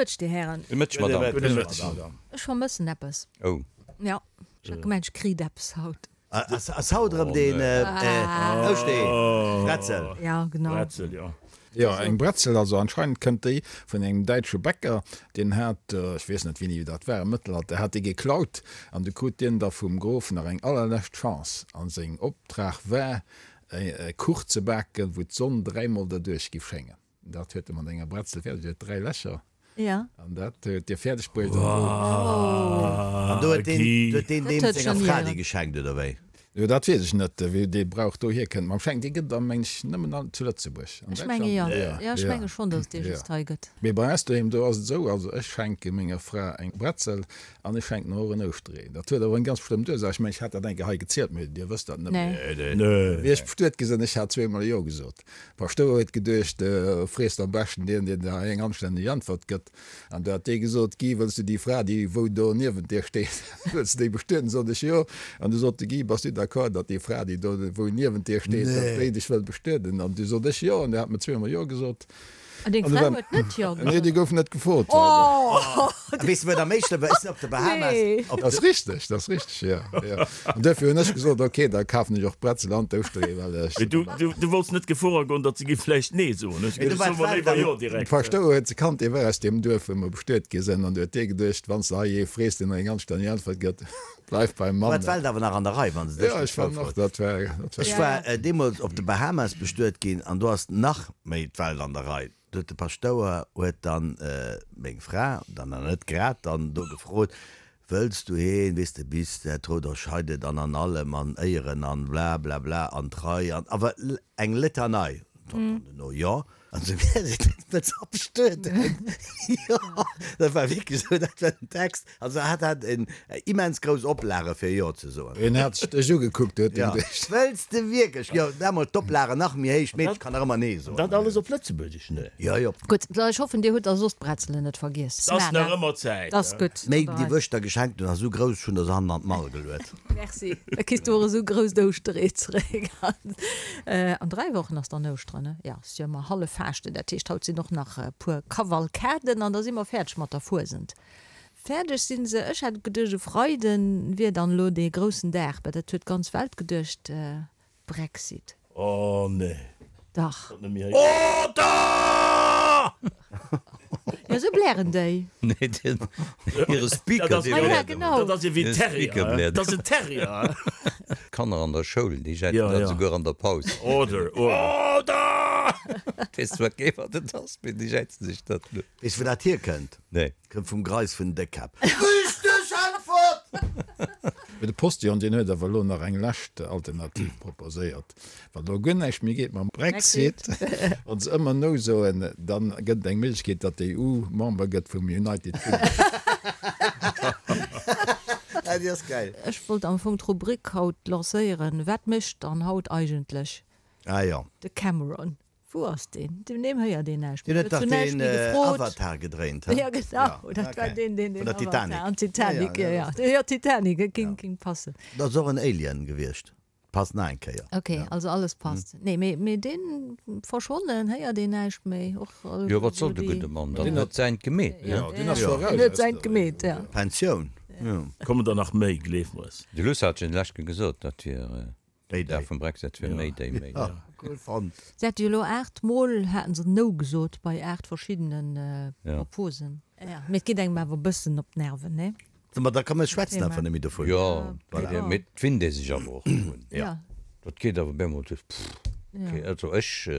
Mëtteg, Dir Hären. Gudde Mëtteg, Madame. Gudde Mëtteg, Madame. Ech vermëssen eppes. Oh. Jo, ech hat gemengt, ech kritt eppes haut. Ass haut erëm deen Ouschtee? Bretzel? Ja, genau. Bretzel, jo. Jo, eng Bretzel, also anscheinend kënnt déi vun engem däitsche Bäcker, deen hat, ech weess net wéini dat war, am Mëttelalter hat dee geklaut an du krut dien da vum Grof nach eng allerlescht Chance an seng Optrag war e Kuch ze baken, wou d'Sonn dräimol derduerch giff schéngen. Dat huet e mat enger Bretzel fäerdeg, déi huet 3 Lächer. Ja. An dat huet Dir fäerdeg bruecht. An do huet deen, huet deen deem senger Fra déi geschenkt, oder wéi? Jo, dat weess ech net, wéi dee Brauch dohier kënnt. Mam Schenken, dee gëtt et, meng ech, nëmmen an, zu Lëtzebuerg. An Ech menge jo. Jo, ech menge schonn, datt et dee just hei gëtt. Mee bei eis doheem, do ass et esou, also ech schenke menger Fra eng Bretzel an ech schenken och en Ouschteree. Dat huet awer eng ganz bestëmmt Ursaach. Ech mengen, ech hat dat eng Kéier hei gezielt, mee Dir wësst dat net méi. Nee. Wéi ech bestuet gi sinn, ech hat zweemol Jo gesot. Paschtouer huet geduecht, Frees am beschten deen, deen der eng anstänneg Äntwert gëtt. An du hat dee gesot, Guy, wëlls du déi Fra, déi wou do niewent dir steet, wëlls du déi bestueden? Sot ech, Jo. An du sot de Guy, Bass du d'accord, datt déi Fra, déi do wou niewent dir steet, datt déi dech wëll bestueden? An du sot ech, Jo. An du hat mer zweemol Jo gesot. An deng Fra huet net Jo gesot? Nee, déi gouf net gefrot. Oh! Weess de, wat am méi schlëmm war? Ech sinn op de Bahamas. Nee. Dat ass richteg, dat ass richteg, jo, jo. An duerfir hunn ech gesot, ok, da kafen ech och d'Bretzel an d'Ouschteree, well ech. Mee du, du, du wollts net Gefor agoen, datt se géif vläicht Nee soen. Hues du geduecht, so mer léiwer Jo direkt. De Paschtouer huet se kannt, dee war aus deem Duerf, wou mer bestuet gi sinn, an du huet dee geduecht, wann s de hei ee frees, deen der eng anstänneg Äntwert gëtt, bleif beim Mann. War d'Welt awer nach an der Rei, wann se dech Jo, ech war nach, dat war, dat war. Ech war deemools op de Bahamas bestuet ginn an do ass nach méi d'Welt an der Rei. Do huet de Paschtouer huet dann meng Fra, dann nach net grad dann do gefrot, Wëlls du heen, weess de, bis der Tod euch scheidet an an allem an Éieren an blablabla an Trei an awer eng Litanei. Dann duerno, Jo. An esou wär se net ze abstueden. Jo, dat war wierklech esou, dat war den Text. Also hat hat en immens grouss Oplage fir Jo ze soen. Hien hat sech dech ugekuckt, huet en geduecht. Wëlls de wierklech? Jo, damol d'Oplage nach méi héich, d'Meedche kann nach ëmmer Nee soen. Dat alles op Lëtzebuergesch, ne? Jo, jo. Gutt, ech hoffen dir hutt da soss d'Bretzelen net vergiess. 't ass nach ëmmer Zäit. 't ass gutt. Méi déi wou ech der geschenkt hunn ass esou grouss, ech hunn der se hannen an d'Mall geluet. Merci, da kriss du och esou grousst Ouschteree zeréck. An 3 Wochen ass dann Ouschteren, ne? Jo, ass jo ëmmer hallef Faaschten, dat heescht haut sinn och nach e puer Kavalkaden an da si mer fäerdeg mat der Fuesent. Fäerdeg sinn se. Ech hat geduecht e Freiden wier dann elo dee groussen Dag, mä dat huet d'ganz Welt geduecht, Brexit. Oh nee. Dach. Order! Jo, esou blären déi. Nee, den, hire Speaker, dee Ah ja, bläert genau. Dat ass ewéi en Terrier. Dat ass en Terrier. D'Kanner an der Schoul, déi jäizen Ja, dat ja. esouguer an der Paus. Order, order. Order! Weess zwar kee wat et ass, mee déi jäizen sech dat. Weess wou dat hierkënnt? Nee. Kënnt vum Greis vun Déckkäpp. Richteg Äntwert! Mee de Postillon, deen huet awer elo nach eng lescht Alternativ proposéiert. Wann elo guer näischt méi geet mam Brexit, wa se ëmmer No soen, dann gëtt et eng Méiglechkeet, datt d'EU Member gëtt vum United Kingdom. Ah, déi ass gäil. Ech wollt am Fong d'Rubrik haut lancéieren, Wat mécht dann haut eigentlech Ah jo. de Cameron? Wou ass deen? Vun deem héiert een näischt méi. Deen huet dach deen Avatar gedréint, he? Jo, genau, dat war deen, deen den Avatar an Titanic, jo, jo, jo, Titanic, et ging, ging passen. Dat ass och en Alien gewiescht, passt nach eng Kéier. Ok, also alles passt. Nee, mee, mee deen verschwonnen, héiert een näischt méi. Och Jo, wat soll de gudde Mann dann? Deen huet säint gemeet, ne? Jo, deen ass scho eraus. Deen huet säint gemeet, ja. Pensioun, jo. Kommen der nach méi, gleef mer es. De Luss hat jo lescht gesot, dat wier. Mayday. Dag vum Brexit wier Mayday, Mayday. Cool fonnt. Se hate jo elo 8 mol haten se No gesot bei 8 verschiddene Proposen. Jo, mee et geet engem awer e bëssen op d'Nerven, nee? Ma da komm, mir schwätzen einfach net méi dovun. Jo, mee et winnt ee sech awer och drun. Jo. Dat geet awer bemol duerch, pff, okay. Also ech,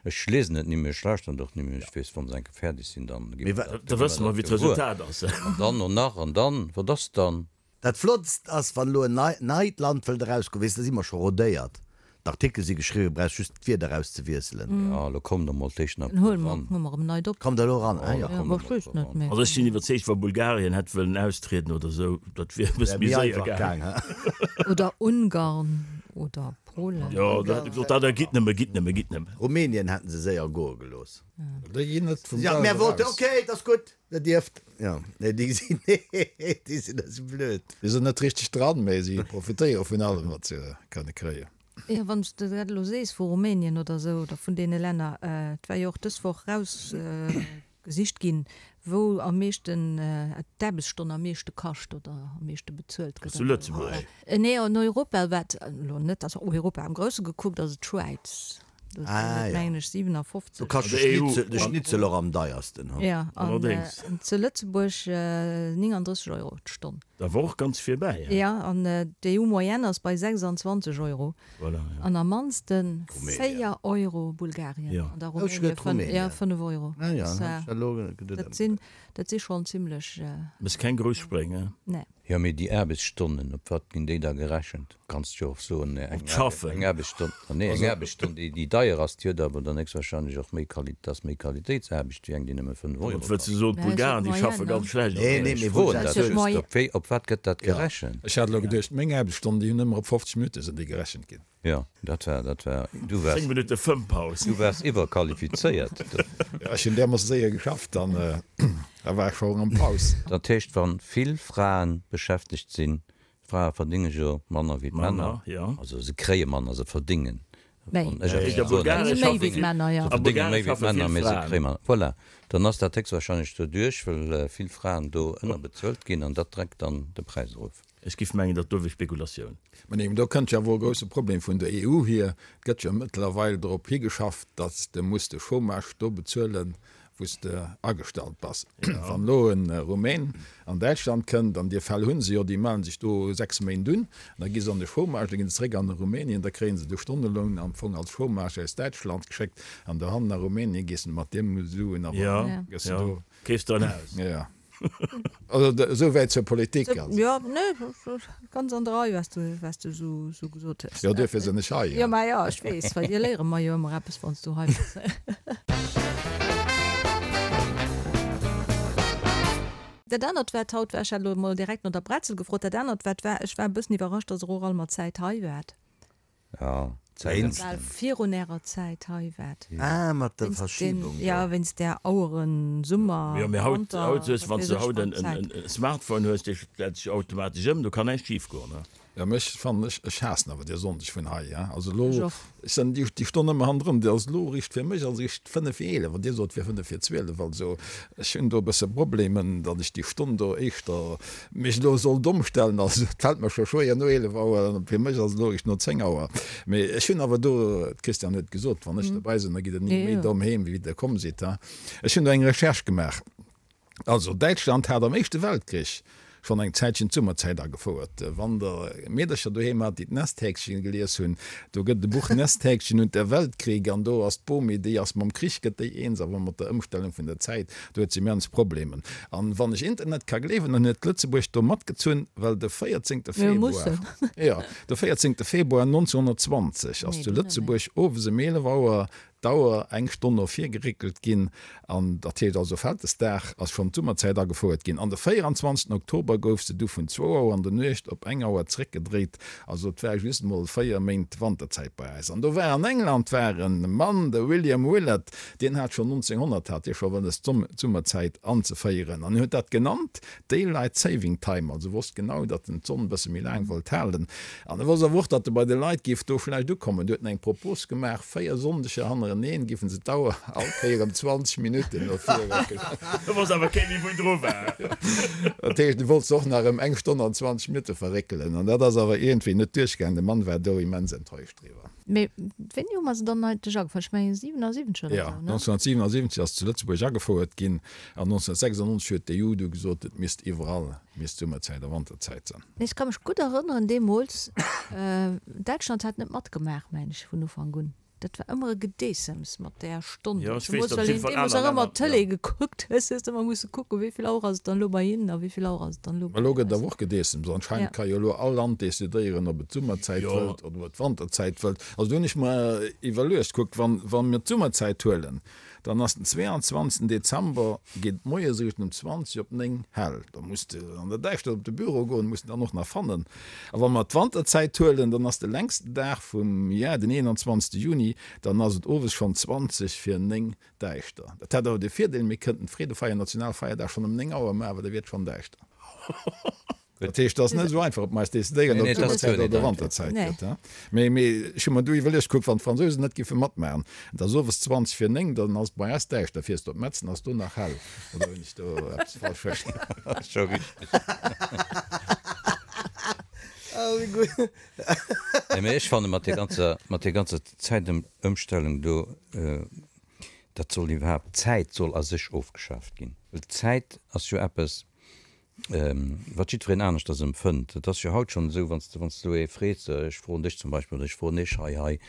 ech liesen et ni méi, ech lauschteren et och ni méi. Ech weess, wa se eng Kéier fäerdeg sinn, dann gi Mee mer dat, da gi mer wësse mer, dat wéi gewuer. d'Resultat ass. An dann no nach, an dann, wat ass dann? Dat Flottst ass, wann elo en neit Land wëllt erausgoen, weess, da si mer scho rodéiert, d'Artikele si geschriwwen, brauchs just d'Wierder erauszewiesselen. Jo, elo kommt der mol d'éischt nach Dann huele eran. mer erëm neit op. Kommt elo eran, ah jo. Jo, kommt der mol eran. Also ech sinn iwwerzeegt, wa Bulgarien hätt wëllen austrieden oder esou, dat wier e bësse Wär méi méi séier einfach gaang. gaang, he? Oder Ungarn oder Polen. Jo, da hätt e gesot, da da gitt nëmme, gitt nëmme, gitt nëmme. Rumänien hätten se séier goe gelooss. Déi ginn net vum Jo, Gas mär wollten, eraus. ok, et ass gutt. Der dierft, jo, nee, déi sinn, nee, déi sinn esou blöd. Déi sinn net richteg dran, mee si profitéiere vun allem, wat se kënne kréien. Jo, wann s de dat elo sees vu Rumänien oder esou oder vun deene Länner, et war jo och dës Woch erausgesot. Gesicht ginn, wou am meeschten d'Aarbechtsstonn am meeschte kascht oder am meeschte bezuelt gëtt. Zu Lëtzebuerg? Nee, an Europa, wat elo net, also Europa am Grousse gekuckt, ass et d'Schwäiz. Do sinn et, mengen ech, 57. Do kascht de Schnitzel och am deiersten, hu? Jo, an zu Lëtzebuerg 39 Euro d'Stonn. Da war och ganz virbäi, he? Jo, an d'EU-Moyenne ass bei 26 Euro. Voilà, ja. An am mannsten 4 Euro Bulgarien ja. an da Rumänien ja, 5 Euro. Ah, ja, dat sinn dat si schonn zimlech. Méchs keng grouss Spréng, he? Nee. Jo, mee déi Aarbechtsstonnen, op wat ginn déi da gerechent? Kanns jo och soen, eng Aarbechtsstonn, nee, eng Aarbechtsstonn, déi déi deier ass, déi huet awer dann héchstwahrscheinlech och méi Quali, dat ass méi Qualitéitsaarbecht wéi eng, déi nëmme 5 Euro kascht. Wëlls de soen, d'Bulgaren, déi schaffe ganz schlecht? Nee, nee, mee froen dat just, op wéi, op wat gëtt dat gerechent? Ech hat elo geduecht, meng Aarbechtsstonn, déi hunn ëmmer op 50 Minutte sinn déi gerechent ginn. Jo, dat war, dat war, du waars. 10 Minutte Fëmmpaus. Du waars iwwerqualifizéiert. Jo, ech hunn därmoosse séier geschafft, dann da war ech scho erëm Paus. Dat heescht, wa vill Frae beschäftegt sinn, Frae verdinge jo manner wéi d'Männer, also se kréie manner, se verdingen Méi. Méi wéi d'Männer, jo. Se verdénge méi wéi d'Männer, mee se kréie manner. Voilà. Dann ass dat héchstwahrscheinlech doduerch, well vill Fraen do ënnerbezuelt ginn an dat dreckt dann de Präis erof. Ech giff mengen, dat do wier Spekulatioun. Mä nee, do kënnt jo awer e grousse Problem vun der EU hier. Et gëtt jo mëttlerweil drop higeschafft, datt s de muss de Chômage do bezuelen, wou s de agestallt bass. Wann elo e Rumän an Däitschland kënnt, an déi Fäll hu se jo, déi mellen sech do 6 Méint un, an da gi se an de Chômage, da ginn se zeréck an Rumänien, da kréie se de Stonneloun am Fong als Chômage aus Däitschland geschéckt, an dohannen a Rumänien gees de mat deem Suen awer gëss de do. Keefs de en Haus. Jo. Also esou wäit zur Politik. Jo, nee, ganz an der Rei, wat s du, wat s du esou, esou gesot hues. Jo, duerfir sinn ech hei. Jo, mä jo, ech weess, well dir léiere mer jo ëmmer eppes, wann s du hei bass. Dat anert, wat haut war, ech hat elo emol direkt no der Bretzel gefrot, dat anert, wat war, ech war e bëssen iwwerrascht, dass Der och all mat Zäit hei waart. Ja, Zäit. Bal virun ärer Zäit hei waart. Ah, mat der Verschiebung do. Ja, wéinst där Aueren, Summer, Jo, mee haut, Wanter, haut hues, wann s du haut en Smartphone hues, dee stellt sech automatesch ëm, do kann näischt schif goen, ne? Jo, mee ech fannen, ech, ech haassen awer dee Sonndeg vun hei, ja. Also elo, ech sinn déi, déi Stonn ëmmer hannendrun, déi ass elo richt fir mech ass richt 5 vir 11, an Dir sot, et wier 5 vir 12. Also ech hunn do e bësse Problemen, datt ech déi Stonn do éischter mech elo sollt ëmstellen, also et fält mer scho schwéier no 11 Auer, an fir mech ass et elo eréischt no 10 Auer. Mee ech hunn awer do, d'Christiane huet et gesot, wann ech dobäi sinn, da gitt Der ni méi domm heem, wéi Der komm sidd. Ech hunn do eng Recherche gemaach. Also Däitschland hat am Éischte Weltkrich schonn eng Zäitchen d'Summerzäit agefouert. Wann Der Meedercher doheem hat, déi d'Nesthäkchen gelies hunn, do gëtt et e Buch Nesthäkchen und der Weltkrieg an do ass d'Bomi, déi ass mam Krich gëtt déi eens, awer mat der Ëmstellung vun der Zäit. Do huet se immens Problemen. An wann ech Internet ka gleewen, dann huet Lëtzebuerg do matgezunn, well de 14. Februar, jo, de 14. Februar 1920 ass zu Lëtzebuerg owes ëm 11 Auer d'Auer eng Stonn no vir geréckelt ginn. An dat heescht also Vältesdag ass schonn d'Summerzäit agefouert ginn. An de 24. Oktober gouf se du vun zwou Auer an der Nuecht op eng Auer zréckgedréit. Also et war just emol 4 Méint Wanterzäit bei eis. An do war an England war e Mann, de William Willett, Deen hat schonn 1900 hat dee scho wëlles d'Summerzäit anzeféieren an en huet dat genannt Daylight Saving Time, also wosst genau, datt en d'Sonn e bësse méi laang wollt halen an e wosst awer och, datt e bei de Leit géif do schlecht ukommen. Du huet en eng Propos gemaach, 4 Sonndeger hannereneen géifen se d'Auer all Kéier ëm 20 Minutten no vir réckelen. Do wosst awer kee méi wou dru war. Dat heescht, e wollt se och nach ëm eng Stonn an 20 Minutte verréckelen an dat ass awer iergendwéi net duerchgaangen. De Mann war do immens enttäuscht driwwer. Mee wéini hu mer se dann eigentlech agefouert? Ech mengen 77 oder esou, ne? Jo, 1977 ass zu Lëtzebuerg agefouert ginn an 1996 huet d'EU du gesot, et misst iwwerall misst Summerzäit a Wanterzäit sinn. Mee ech ka mech gutt erënneren deemools, Däitschland hat net matgemaach, mengen ech, vun Ufank un. Dat war ëmmer e Gedeessems mat där Stonn. Jo, ech weess, datt op jiddwer Fall aner aner Länner, ëmmer d'Tëlee jo. gekuckt hues, hues de ëmmer musse kucken, wéi vill Auer ass et dann elo bei hinnen a wéi vill Auer ass et dann elo bei Elo gëtt awer och Gedeessems. Anscheinend Ja. ka jo elo all Land decidéieren, ob et d'Summerzäit Jo. wëllt oder ob et d'Wanterzäit wëllt. Also do hunn ech mer iwwerluecht, kuckt, wann, wa mir d'Summerzäit huelen, dann ass den 22. Dezember, geet et moies eréischt um 20 op 9 hell. Da muss de an der Däischtert op de Büro goen, muss en dann och nach fannen. A wa mer d'Wanterzäit huelen, dann ass de längsten Dag vum Jar den 21. Juni, dann ass et owes schonn 20 vir 9 däischter. Dat hätt awer de Virdeel, mir kënnten d'Freedefeier, Nationalfeierdag, schonn ëm 9 Auer maachen, well da wier et schonn däischter. Dat heescht, et ass net esou einfach, ob mer eis decidéieren, ob et Summerzäit oder Wanterzäit gëtt. Mee ech hu mer du iwwerluecht, kuck, wann d'Fransousen net géife matmaachen, et ass owes 20 vir 9, dann ass et bei eis däischter, fiers de op Metzen, ass do nach hell. Oder hunn ech do eppes falsch verstanen? Ass scho richteg. Nee, mee ech fanne mat där ganzer, mat där ganzer Zäitëmstellung do, dat soll iwwerhaapt, d'Zäit soll a sech ofgeschaaft ginn. Well d'Zäit ass jo eppes, wat jiddwereen aneschters empfënnt. Et ass jo haut schonn esou, wann s de, wann s de elo ee frees, ech froen dech zum Beispill oder ech froen iech hei, hei,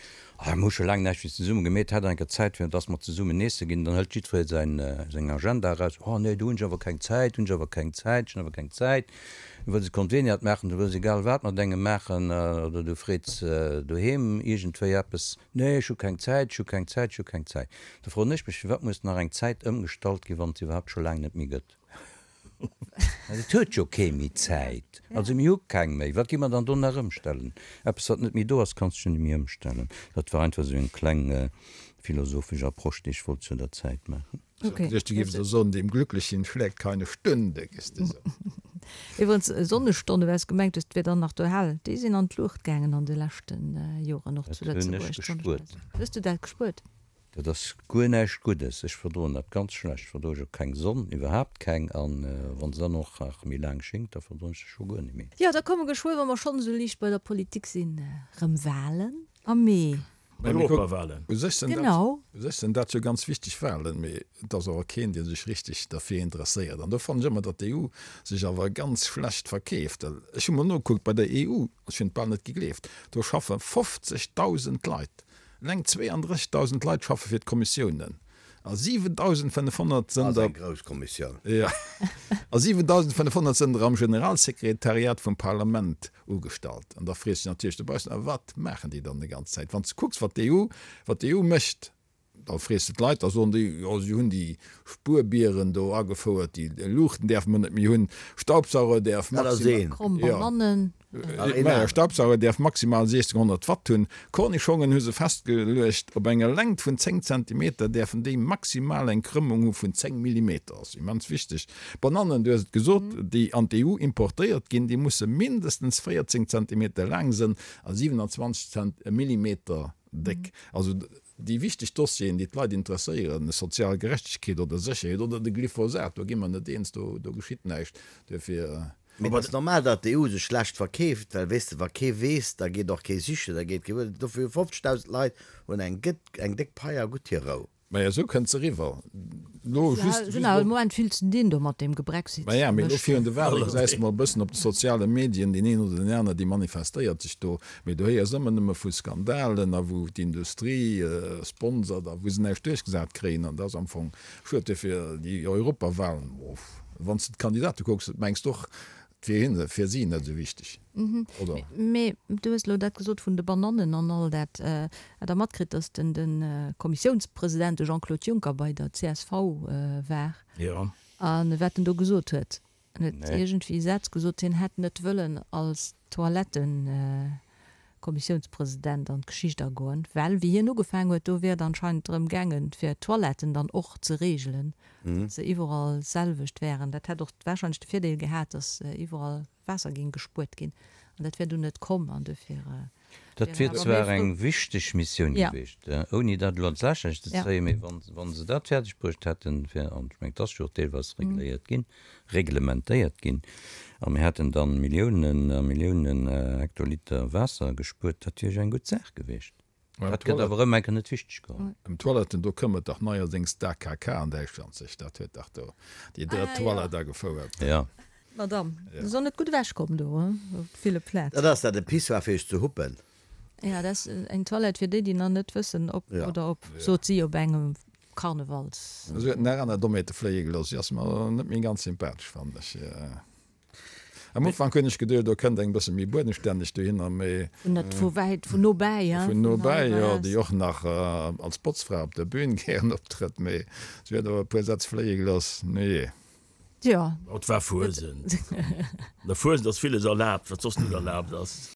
ah mir hu scho laang näischt méi zesumme gemeet, hätt der eng Kéier Zäit fir dass mer zesummen eesse ginn, dann hëlt jiddweree säin, seng Agenda eraus, oh nee, do hunn ech awer keng Zäit, hunn ech awer keng Zäit, ech hunn awer keng Zäit. Du wëlls e Konveniat maachen, du wëlls egal wat mat engem maachen oder du freets doheem iergendwéi eppes, nee ech hu keng Zäit, ech hu keng Zäit, ech hu keng Zäit. Da froen ech mech, firwat muss nach eng Zäit ëmgestallt ginn, wann et se iwwerhaapt scho laang net méi gëtt? Et huet jo kee méi Zäit. Also mir hu keng méi. Wat gi mer dann do nach ëmstellen? Eppes, wat net méi do ass, kanns du jo net méi ëmstellen. Dat war einfach esou eng kleng philosophesch Approche, déi ech wollt zu der Zäit maachen. Ech hat geduecht, du géifs elo soen, Dem Glücklichen schlägt keine Stunde, gess de sou. Iwwerens, Sonnestonne, well s gemengt hues, 't wier dann nach do hell, déi sinn an d'Luucht gaangen an de leschte Joren, och zu Dat hunn ech Lëtzebuerg. gespuert. Hues du dat gespuert? Dat ass guer näischt Guddes. Ech verdroen dat ganz schlecht. Ech verdroe jo keng Sonn, iwwerhaapt keng. An wann se dann och nach méi laang schéngt, da verdroen ech se scho guer net méi. Jo, da komme geschwë, wa mer schonn esou liicht bei der Politik sinn, erëm Walen am Mee. Europawalen. U sech sinn dat, Genau. u sech sinn dat jo ganz wichteg Walen, mee et ass awer keen, dee sech richteg derfir interesséiert. An do fannen ech ëmmer, datt d'EU sech awer ganz schlecht verkeeft. Ech hu mol nogekuckt, bei der EU, ech hunn et bal net gegleeft, do schaffe 50.000 Leit Eleng 32.000 Leit schaffe fir d'Kommissiounen a 7.500 sënn der. Ass eng grouss Kommissioun. Jo. A 7.500 sënn der am Generalsekretariat vum Parlament ugestallt. An da frees de dech natierlech dobaussen, A wat maachen déi dann déi ganz Zäit? Wann s de kucks, wat d'EU, wat d'EU mécht, da frees de d'Leit, da soen déi, jo, si hunn déi Spuerbieren do agefouert, déi Luuchten däerfe mer net méi hunn, Staubsauger däerf Dat ass maximal. een. Kromm Banannen. Maja, Staubsauger däerf maximal 1600 Watt hunn. Kornischongen hu se festgeluecht, op enger Längt vun 10 Zentimeter däerfen déi maximal eng Krëmmung hu vun 10 Millimeter. Ass immens wichteg. Banannen, du hues et gesot, déi an d'EU importéiert ginn, déi musse mindestens 14 Zentimeter laang sënn a 27 Millimeter déck. Also déi wichteg Dossieren, déi d'Leit interesséieren, sozial Gerechtegkeet oder Sécherheet oder de Glyphosat, do gi mer net eens, do geschitt näischt. Duerfir. Mee et ass normal, datt d'EU sech schlecht verkeeft, well weess de, wa kee weess, da geet och kee sichen, da geet kee wuel. Dofir hu 50.000 Leit hunn eng gëtt eng déck Pai a gutt hir Rou. Maja, esou kënnt se eriwwer. Lo just, just elo. Moment vill ze dinn do mat deem Gebrexit. Maja, mee elo virun de Wale gesäis de mol e bëssen op de soziale Medien deen een oder deen aner, dee manifestéiert sech do. Mee do héiers ëmmer nëmme vu Skandalen a wou d'Industrie sponsert a wou se näischt duerchgesat kréien. An dat ass am Fong Schued duerfir déi Europawahlen, wann s de d'Kandidate kucks, mengs de och, et wier hinne, fir si net esou wichteg, oder? Mee du hues elo dat gesot vun de Banannen an all dat. Hat Der matkritt, datt den de Kommissiounspresident, de Jean-Claude Juncker, bei der csv war? Jo. A wat en do gesot huet? En huet iergendwéi Sätz gesot, hien hätt net wëllen als Toilettenkommissiounspresident an d'Geschicht agoen, well wéi hien ugefaangen huet, do wier et anscheinend drëm gaangen, fir d'Toiletten dann och ze reegelen, datt se iwwerall d'selwecht wären. Dat hätt och warscheinlech de Virdeel gehat, datt iwwerall Waasser géing gespuert ginn. An dat wär dunn net komm an dofir. Dat wier zwar eng wichteg Missioun gewiescht, ouni dat elo an d'Lächerlecht ze zéien, mee wa se dat fäerdeg bruecht hätten, fir, an ech mengen, et ass jo och deelweis regléiert ginn, reglementéiert ginn, a mir hätten da Milliounen a Milliounen Hektoliter Waasser gespuert, dat wier jo eng gutt Saach gewiescht. Dat gëtt awer erëm eng Kéier net wichteg geholl. Ëm Toiletten, do këmmert dach neierdéngs d'AKK an Däitschland sech. Dat huet dach do déi drëtt Toilette agefouert. Jo. Madame, du soll net gutt ewech kommen do op ville Plätzen. Dat ass dat e Pissoir fir iech ze huppen. Ja, dat ass eng Toilette fir déi, déi nach net wëssen ob oder op, sot si op engem Karnevals. Si huet nach aner Dommheete fléie gelooss. Si ass mer net méi ganz sympathesch, fannen ech. Am Ufank hunn ech geduecht, do kënnt eng bësse méi buedenstänneg dohinner, mee. Vun net vu wäit, vun nobäi, hein? Vun nobäi, jo, déi och nach als Botzfra op der Bühn gären optrëtt, mee si huet awer e puer Sätz fléie gelooss. Nujee. Jo. Et war Fuesent. An der Fuesent ass villes erlaabt, wat soss net erlaabt ass.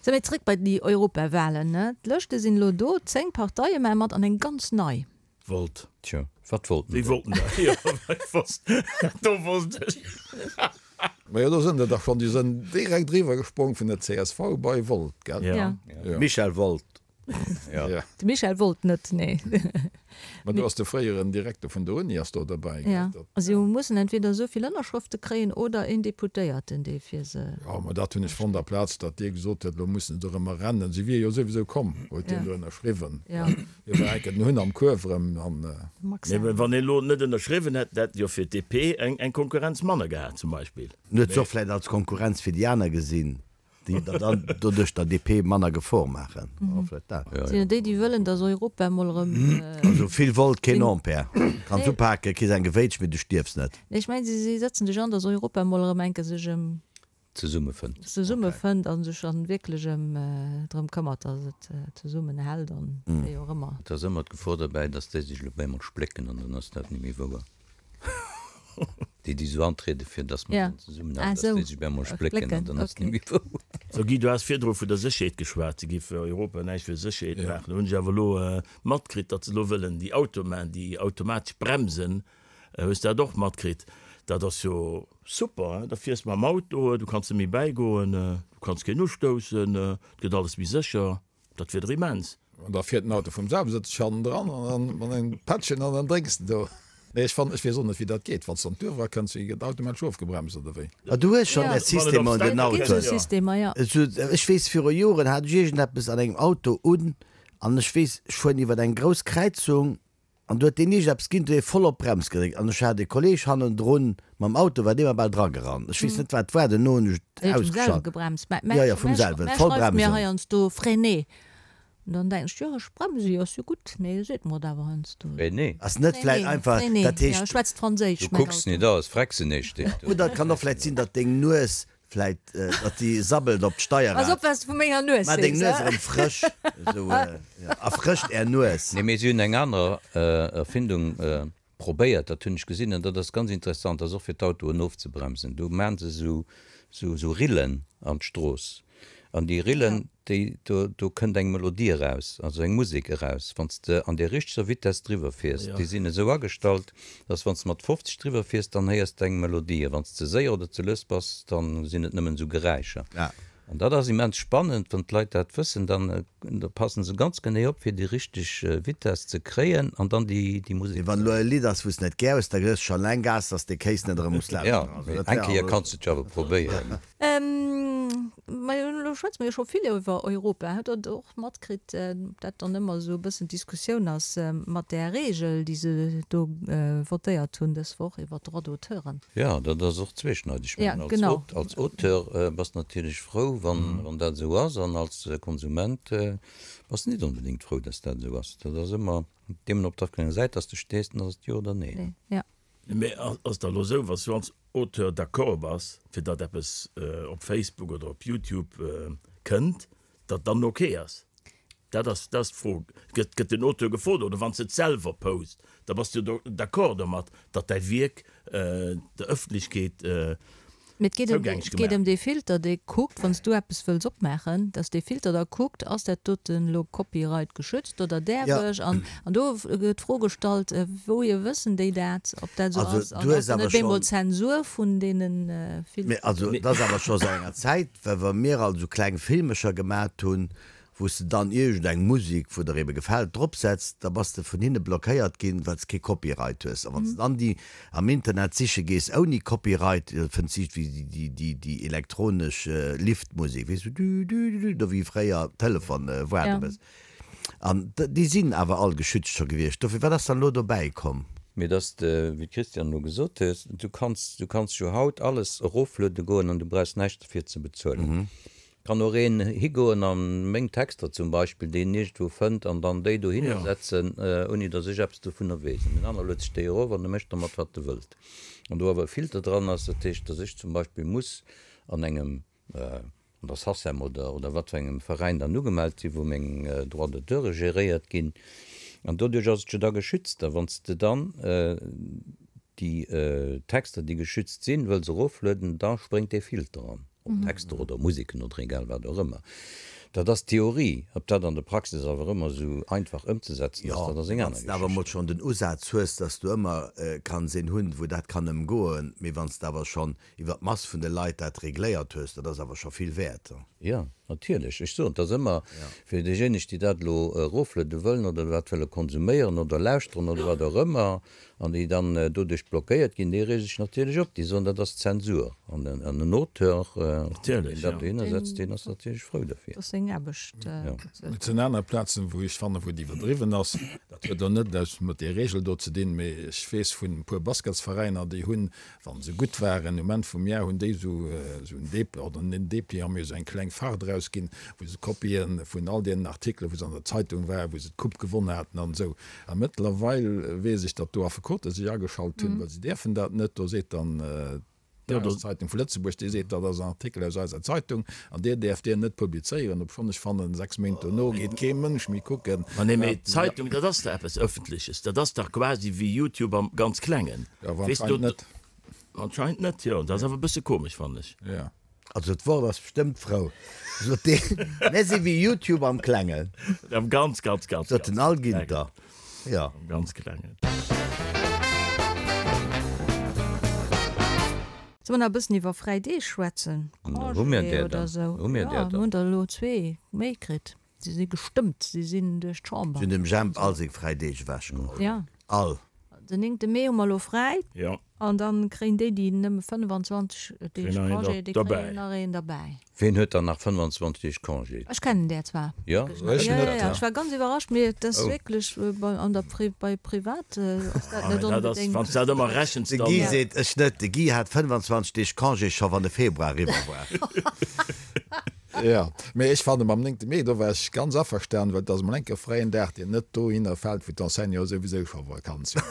Sou, mee zréck bei déi Europawahlen, ne? D'Lëschte sinn elo do, 10 Parteie maache mat an eng ganz nei. Wollt. Tjo, wat wollten déi? Wéi wollten dat? Jo, ech wosst, do wosst ech. Majo, do sënn der dach schonn, déi sënn direkt eriwwer gesprong vun der csv bei Volt, gell? Ja. Ja. Michel Woldt. Ja. De Michel wollt net, nee. Mä do ass de fréieren Direkter vun der Uni ass do derbäi, gell? Ja. A si mussen entweder esou vill Ënnerschrëfte kréien oder een Deputéierten, dee fir se. Jo, mä dat hunn ech fonnt, aplaz datt Dir gesot huet, elo mussen se dorëmmer rennen. Si wier jo souwisou komm, huet deen do ënnerschriwwen. Ja. Hie war enk den Hunn am Kuerf erëm an. Max. Mee wann een elo net ënnerschriwwen hätt, hätt jo fir d'DP eng Konkurrenz manner gehat zum Beispill. En huet se och vläicht als Konkurrenz fir déi aner gesinn. Déi der dann doduerch der DP manner Gefor maachen. Vläicht dat. Sinn et déi, déi wëllen, datt Europa emol erëm. Also vill Volt, keen Ampère. Kanns upaken, kriss eng gewéitscht, mee du stierfs net. Nee, ech mengen, si sëtzen sech an, datt Europa emol erëm eng Kéier sech ëm. Zesummefënnt. Zesummefënnt a sech dann wierklech ëm drëm këmmert, datt et zesummenhält an wéi och ëmmer. Et ass ëmmer d'Gefor derbäi, datt déi sech elo op eemol splécken an dann ass dat net méi wouer. Déi, déi esou antrieden, fir dass mer dann zesummen aarbechten, dass déi sech op eemol splécken an dann ass et net méi wouer. So Guy, du has virdru vun der Sécherheet geschwat, se géif Europa näischt fir Sécherheet maachen. Do hunn ech awer elo matkritt, datt se elo wëllen déi Automaen, déi automatesch Bremsen, hues de dat och matkritt? Dat ass jo super, hein, da fiers de mam Auto, du kanns net méi bäigoen, du kanns keen ustoussen, et gëtt alles méi sécher. Dat wier der immens. An da fiert den Auto vum selwen, sëtzt sech hannendran an dann mat engem Pättchen an dann drénks de do. Nee, ech fannen, ech weess och net wéi dat geet, wann s de an d'Duerf erakënns, wéi gëtt automatesch ofgebremst oder wéi? Ah, du hues schonn där Systemer an den Autoen. Ech weess, viru Joren hat ech iergendeppes an engem Auto un an ech weess, ech fueren iwwer eng grouss Kräizung An du huet deen iergendeppes ginn, du huet voll op d'Brems gedréckt an ech hat e Kolleg hannendrun mam Auto, war dee mer bal dragerannt. Ech weess net wat et war, duerno hunn ech et Huet vum selwe ausgeschalt. gebremst. Mä Jo, jo, vum selwen, mä voll schreift mir bremsen. heiansdo Freiné. An dann denken ech, jo ech bremse jo, ass jo gutt, mee e seet mer et awer heiansdo. Freiné? Ass net vläit Freiné, einfach, Freiné, dat jo, heescht. e schwätzt Franséisch, Du mäin kucks Auto. net aus, Frexené steet do. Oder et kann och vläit sinn, datt deng Nues Vläit, datt déi sabbelt op d'Steierrad. Pass op, wat s de vu menger Nues Maach deng sees, Nues he? erëm frësch, esou, jo, erfrëscht är Nues. Nee, mee si hunn eng aner Erfindung probéiert, dat hunn ech gesinn, an dat ass ganz interessant, dat ass och fir d'Autoen ofzebremsen. Do maachen se esou, esou Rillen an d'Strooss, an déi Rillen, déi, do, do kënnt eng Melodie eraus, also eng Musek eraus, wann s de an där richteger Vitess driwwer fiers. Déi sinn esou agestallt, dass wann s de mat 50 driwwer fiers, dann héiers de eng Melodie, a wann s de séier oder ze lues bass, dann sinn et nëmmen esou Geräischer. An dat ass immens spannend, wann d'Leit dat wëssen, dann da passen se ganz genee op, fir déi richteg Vitess ze kréien an dann déi déi Musek Mee wann elo e Lidd ass, wou s de net gär hues, da gëss scho eleng Gas, dass de Kéis net erëm muss Jo, lauschteren. mee eng Kéier kanns de et jo awer probéieren. Majo, elo schwätze mer jo scho vill iwwer Europa. Hutt Der et och matkritt, dat dann ëmmer esou e bëssen d'Diskussioun ass mat där Regel, déi se do votéiert hunn dës Woch iwwer d'Droits d'auteuren? Jo, dat ass och zweeschneideg. Ech mengen, als Auteur bass de natierlech frou, wann dat esou ass, an als Konsument bass de net onbedéngt frou, dass dat esou ass. Dat ass ëmmer deemno, op wat fir enger Säit dass de stees, dann ass et jo oder nee. Mee ass da elo esou, wa s du als Auteur d'accord bass, fir datt eppes op Facebook oder op YouTube kënnt, datt dann ok ass? Dat ass dat ass d'Fro. Gëtt gëtt den Auteur gefrot oder wann s de et selwer post, da bass du jo d'accord domat, datt däi Wierk der Ëffentlechkeet Mee et geet ëm zougänglech et geet gemaach ëm dee Filter, dee kuckt, wann s du eppes wëlls opmaachen, datt dee Filter da kuckt, ass dat doten elo Copyright geschützt oder däerf Ja. ech? An an do gëtt d'Fro gestallt, wouhier wëssen déi dat, ob dat esou Also ass? An du ass hues dann awer net bemol schonn. Zensur vun deene Mee Filteren? also et ass awer scho säit enger Zäit, well wa mir alt esou kleng Filmecher gemat hunn, wou s de dann iergend eng Musek, wou der ebe gefält, drop setz, da bass de vun hinne blockéiert ginn, well s kee Copyright hues. A wann s de dann déi am Internet siche gees ouni Copyright, da fënns de iergendwéi déi, déi elektronesch Liftmusek, weess du, dü, dü, dü, dü, do wéi fréier Telefon waarde bëss. An déi sinn awer all geschützt scho gewiescht. Dofir, wat ass dann elo dobäi komm? Mee dass de, wéi d'Christiane elo gesot huet, du kanns, du kanns jo haut alles erofluede goen an du brauchs näischt derfir ze bezuelen. Kann och een higoen an meng Texter zum Beispill, déi en iergendwou fënnt, an dann déi dohinner setzen, ouni datt ech eppes dovunner weess. An deen anere luet sech déi erof an e mécht dermat wat e wëllt. An do awer e Filter dran ass, dat heescht, datt ech zum Beispill muss an engem, an der Sacem oder oder wat fir engem Veräin dann ugemellt sinn, wou meng Droits d'auteure geréiert ginn. An doduerch ass et jo da geschützt. A wann s de dann déi Texter, déi geschützt sinn, wëlls eroflueden, da spréngt dee Filter an. Ob Texter oder Museken oder egal wat och ëmmer. Dat ass d'Theorie. Ob dat an der Praxis awer ëmmer esou einfach ëmzesetzen ass, dat ass eng wann aner s de awer emol Geschicht. schonn den Usaz hues, dass du ëmmer kanns een hunn, wou dat kann ëmgoen, mee wann s de awer schonn iwwer d'Mass vun de Leit dat regléiert hues, dat ass awer scho vill wäert. Jo, natierlech. Ech soen, et ass ëmmer fir déijéineg, déi dat elo erofluede wëllen oder dat wëlle konsuméieren oder lauschteren oder wat och ëmmer, an déi dann doduerch blockéiert ginn, déi reege sech natierlech op. Déi soen, dat ass Zensur. An en Auteur, deen dat dohinner setzt, deen ass natierlech frou derfir. Dat ass seng Aarbecht. Et sinn aner Plazen, wou ech fannen, wou et iwwerdriwwen ass. Dat huet elo net eppes mat där Regel do ze dinn, mee ech weess vun e puer Basketsveräiner, déi hunn, wa se gutt waren, um Enn vum Jar hunn déi esou en Depli, oder net en Depliant, mee esou eng kleng Fach erausginn, wou se Kopie vun all deenen Artikelen, wou se an der Zeitung waren, wou se d'Coupe gewonn haten an esou. A mëttlerweil weess ech, datt do Affekote sech ageschalt hunn, well se däerfen dat net. Do seet dann d'Dageszeitung vu Lëtzebuerg, déi seet, dat ass en Artikel aus eiser Zeitung an dir däerft deen net publizéieren, obschonn ech fannen, 6 Méint dono geet kee Mënsch méi kucken. Ma nee, mee d'Zeitung, dat ass dach eppes Ëffentleches. Dat ass dach quasi wéi YouTube am ganz Klengen. Jo, awer anscheinend net. Anscheinend net, jo. Dat ass awer e bësse komesch, fannen ech. Jo. Also d'Wort ass bestëmmt frou, sot deen. Mär si wéi YouTube am Klengen. Am ganz, ganz, ganz, Sot den Al Ginter. Jo. Am ganz Klengen. Solle mer nach e bëssen iwwer fräi Deeg schwätzen? Hu mir Congé där oder dann? esou? Hu mir Jo, där mir dann? hunn der elo zwee méi kritt. Si si gestëmmt, si sinn duerch d'Chamber. Si hunn dem Jemp all seng fräi Deeg ewechgeholl. Ja. All. Den néngte Mee hu mer elo fräi. Jo. An da kréien déi, déi nëmme 25 Deeg Kréien nach een Congé, déi derbäi. kréien nach een derbäi. Ween huet dann nach 25 Deeg Congé? Ech kennen där zwar. Jo? Ech Ja, net. ja, ja. Ech war ganz iwwerrascht, mee et ass Oh. wierklech bei, an der Pri, bei privat ass dat Ah, net dat ass, onbedéngt. wann s dat ëmmer rechens, De dann. Guy seet, ech net. De Guy hat 25 Deeg Congé scho wann de Februar eriwwer war. Jo, mee ech fanne mam néngte Mee, do war ech ganz averstanen, well et ass emol enk e fräien Dag, deen net dohinner fält, wou d'Enseignanten souwisou scho Vakanz hunn.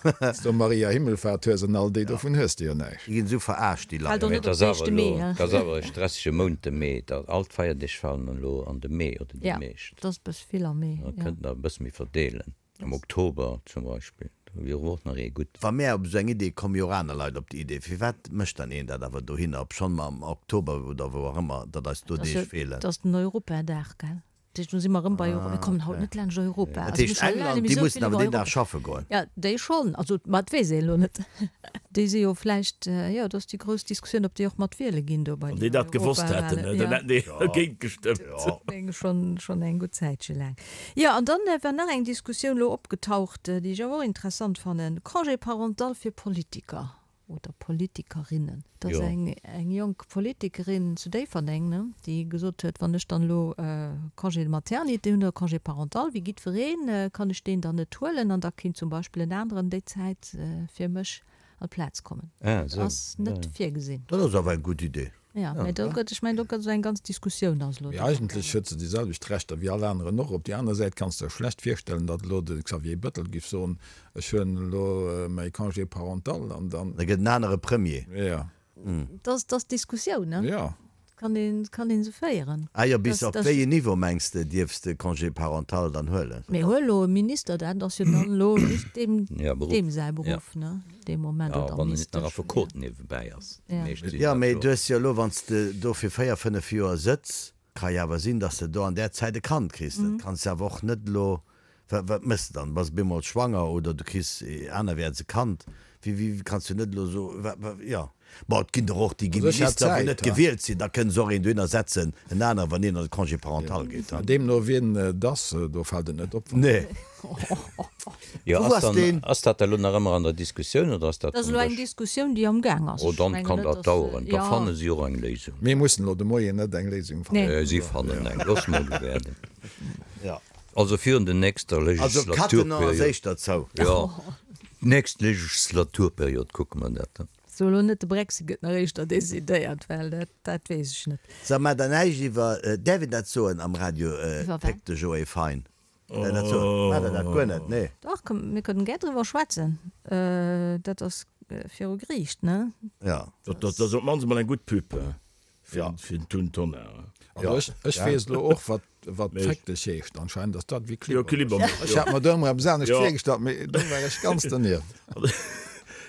Wann s du Maria Himmelfahrt hues an all déi, dovun hues de jo näischt. Déi ginn esou verarscht, déi Leit. Fält och Mee net et op ass den awer éischte elo, Mee, et ass awer e stressege Mount, de Mee. Da, all d'Feierdeeg falen elo an de Mee oder déi Ja, meescht. et ass e bësse vill am Mee, Da jo. kënnt nach e bësse méi verdeelen. Am Oktober zum Beispill, do wier och nach ee gutt. Wa mär op esou eng Idee kommen, jo och aner Leit op déi Idee. Firwat mécht dann een dat awer dohinner, obschonn mer am Oktober oder wou och ëmmer, datt eis do Deeg feelen? Dat ass den Europadag, gell? Dat heescht, do si mer erëm bei Europa. Mir kommen haut net laanscht Europa. Dat heescht, England, déi mussen awer deen Dag schaffe goen. Jo, déi schonn. Also, ma dat weess een elo net. Déi si jo vläicht, jo, dat ass déi grouss Diskussioun, ob déi och mat wiele ginn do bei Wann déi den dat gewosst hätten, Europawahlen. dann hätten déi dergéint gestëmmt. Schonn, schonn eng gutt Zäitche laang. Jo, an dann war nach eng Diskussioun elo opgetaucht, déi ech awer och interessant fannen, Congé parental fir Politiker oder Politikerinnen. Et ass eng eng jonk Politikerin zu Déifferdeng, ne, déi gesot huet, wann ech dann elo Congé de maternité hunn oder Congé parental wéi jiddwereen, kann ech deen dann net huelen an da kinnt zum Beispill en aneren déi Zäit fir mech an d'Plaz kommen. Dat ass net virgesinn. Dat ass awer eng gutt Idee. Ja, mä do gëtt, ech mengen, do gëtt esou eng ganz Diskussioun ass elo Mee do eigentlech amgaangen. huet se déi selwecht Rechter wéi all aneren och. Op déi aner Säit kanns de der schlecht virstellen, datt elo de Xavier Bettel giff soen, ech huelen elo mäi Congé parental an dann. Da gëtt en anere Premier. Ja. Dat ass, dat ass d'Diskussioun, ne? Ja. Kann een, kann een se féieren. Ah jo, bis Dat, op dat. wéi een Niveau mengs de dierfs de Congé parental dann huelen? Mee huel elo e Minister, dat ass jo dann elo just deem, Ja, Beruff. deem säi Ja. Beruff, ne? Dee Moment, Ja, oder wann en net nach Ministesch. Affekot niewebäi ass. Déi Ja. meescht sinn Jo, dat mee jo. du hues jo elo, wann s de do fir 4, 5 Joer sëtz, ka jo awer sinn, datt s de do an där Zäit e Kand kriss. Dat kanns de awer och net elo, wat, wat méchs de dann? Bass bemol schwanger oder du kriss anerwäerts e Kand? Wéi, wéi kanns du net elo so, wat, wat, jo. Bon, et ginn der och, déi gi Also ech hätt Minister, wou Zäit, net ha. gewielt sinn, da kënne se och een dohinner setzen, en anere, wann een an de Congé parental geet, ha. Deemno wien et ass, do fält et net op, wann. Nee. Jo, Wou ass ass dann, deen? ass dat elo nach ëmmer an der Diskussioun oder ass dat Dat ass vum elo eng Dësch? Diskussioun, déi am Gaang ass. Oh, Ech dann mengen kann net, dat dass, daueren. Da jo. fanne si och eng Léisung. Mir mussen elo de Moien net eng Léisung fannen. Nee. Si fannen eng. Loosse mer elo waarden. Ja. Also virun der nächster Also Cattenom ass Legislaturperiod. éischter zou. Jo, nächst Legislaturperiod kucke mer dat dann. So elo net, de Brexit gëtt nach éischter decidéiert, well dat, dat weess ech net. Sag mar der näischt iwwer, däerf een dat soen am Radio, Iwwer wat? Péck de Joé Fein? Däerf een dat soen? Maacht der dat guer net? Nee. Dach, komm, mir kënnen gär driwwer schwätzen. Dat ass viru Geriicht, ne? Ja. Dat ass op d'mannst emol eng gutt Pub fir den Tun Tonnar. Also ech, ech weess elo och, wat, wat Féck dech heescht. Anscheinend ass dat wéi Jo, Klibbermilch. Klibbermilch, Ech hat mer do ëmmer eppes anescht jo. virgestallt, mee do war ech ganz donieft.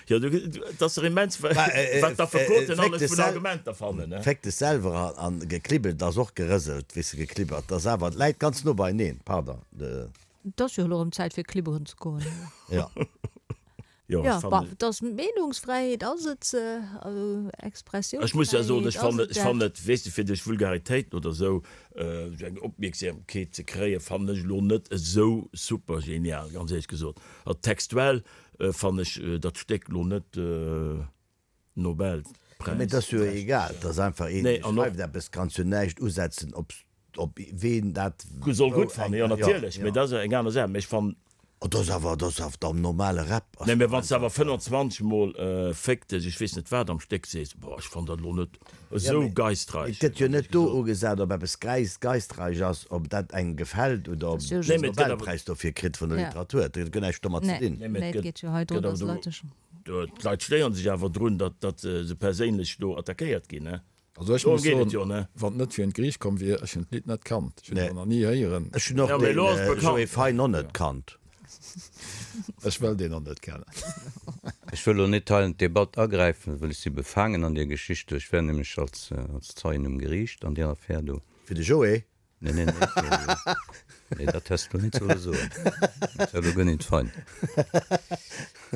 Jo, du, et ass dach immens, wat d'Affekoten alles vun Argumenter fannen, ne? Féck dech selwer an geklibbelt ass och gerëselt, weess de, geklibbert ass awer, et läit ganz no beineen, pardon. Et ass jo elo erëm Zäit fir klibberen ze goen. Jo. Jo, ech fannen. Bon, et ass Meenungsfräiheet ass et, also Expressiounsfräiheet Ech muss ja soen, ech ass fannen, et ech fannen dat. et, weess de, fir duerch Vulgaritéiten oder esou esou eng Opmierksamkeet ze kréien, fannen ech elo net esou super genial, ganz éierlech gesot. Also textuell fannen ech dat Stéck elo net Nobelpräis. Mee et ass jo egal, et ass einfach een, dee schreift eppes, kanns jo näischt usetzen op op ween dat Soll gutt fannen, jo natierlech, mee dat ass eng aner Saach, mee ech fannen. Oh, dat ass awer, dat ass awer am normale Rap. Nee, mee wann s de awer 25 mol Féck dech, ech weess net wat am Stéck sees, boah, ech fannen dat elo net esou geistreich. Et gëtt jo net do ugesat, ob eppes geistreich ass, ob dat engem gefält oder ob een den Nobelpräis dofir kritt vun der Literatur. Dat huet näischt domat ze dinn. Nee, mee et gëtt awer do, d'Leit stéieren sech awer drun, datt se perséinlech do attackéiert ginn, ne? Also ech Dorëm muss geet et soen, jo, ne? wann et net fir un d'Geriicht komm wier, ech hunn d'Lidd net kannt. Ech hunn et och nach ni héieren. Ech hunn och Ja, mee den elo ass et Joé bekannt. Fein och net kannt. Ech wëll deen och net kennen. Ech wëll elo net hei an d'Debatt agräifen, well ech si befaangen an deer Geschicht do. Ech war nämlech als Zeien um Geriicht an deer Affär do. Fir de Joé? Nee, nee, nee, nee, dat häss de lo net solle soen. Dat war lo guer net fein.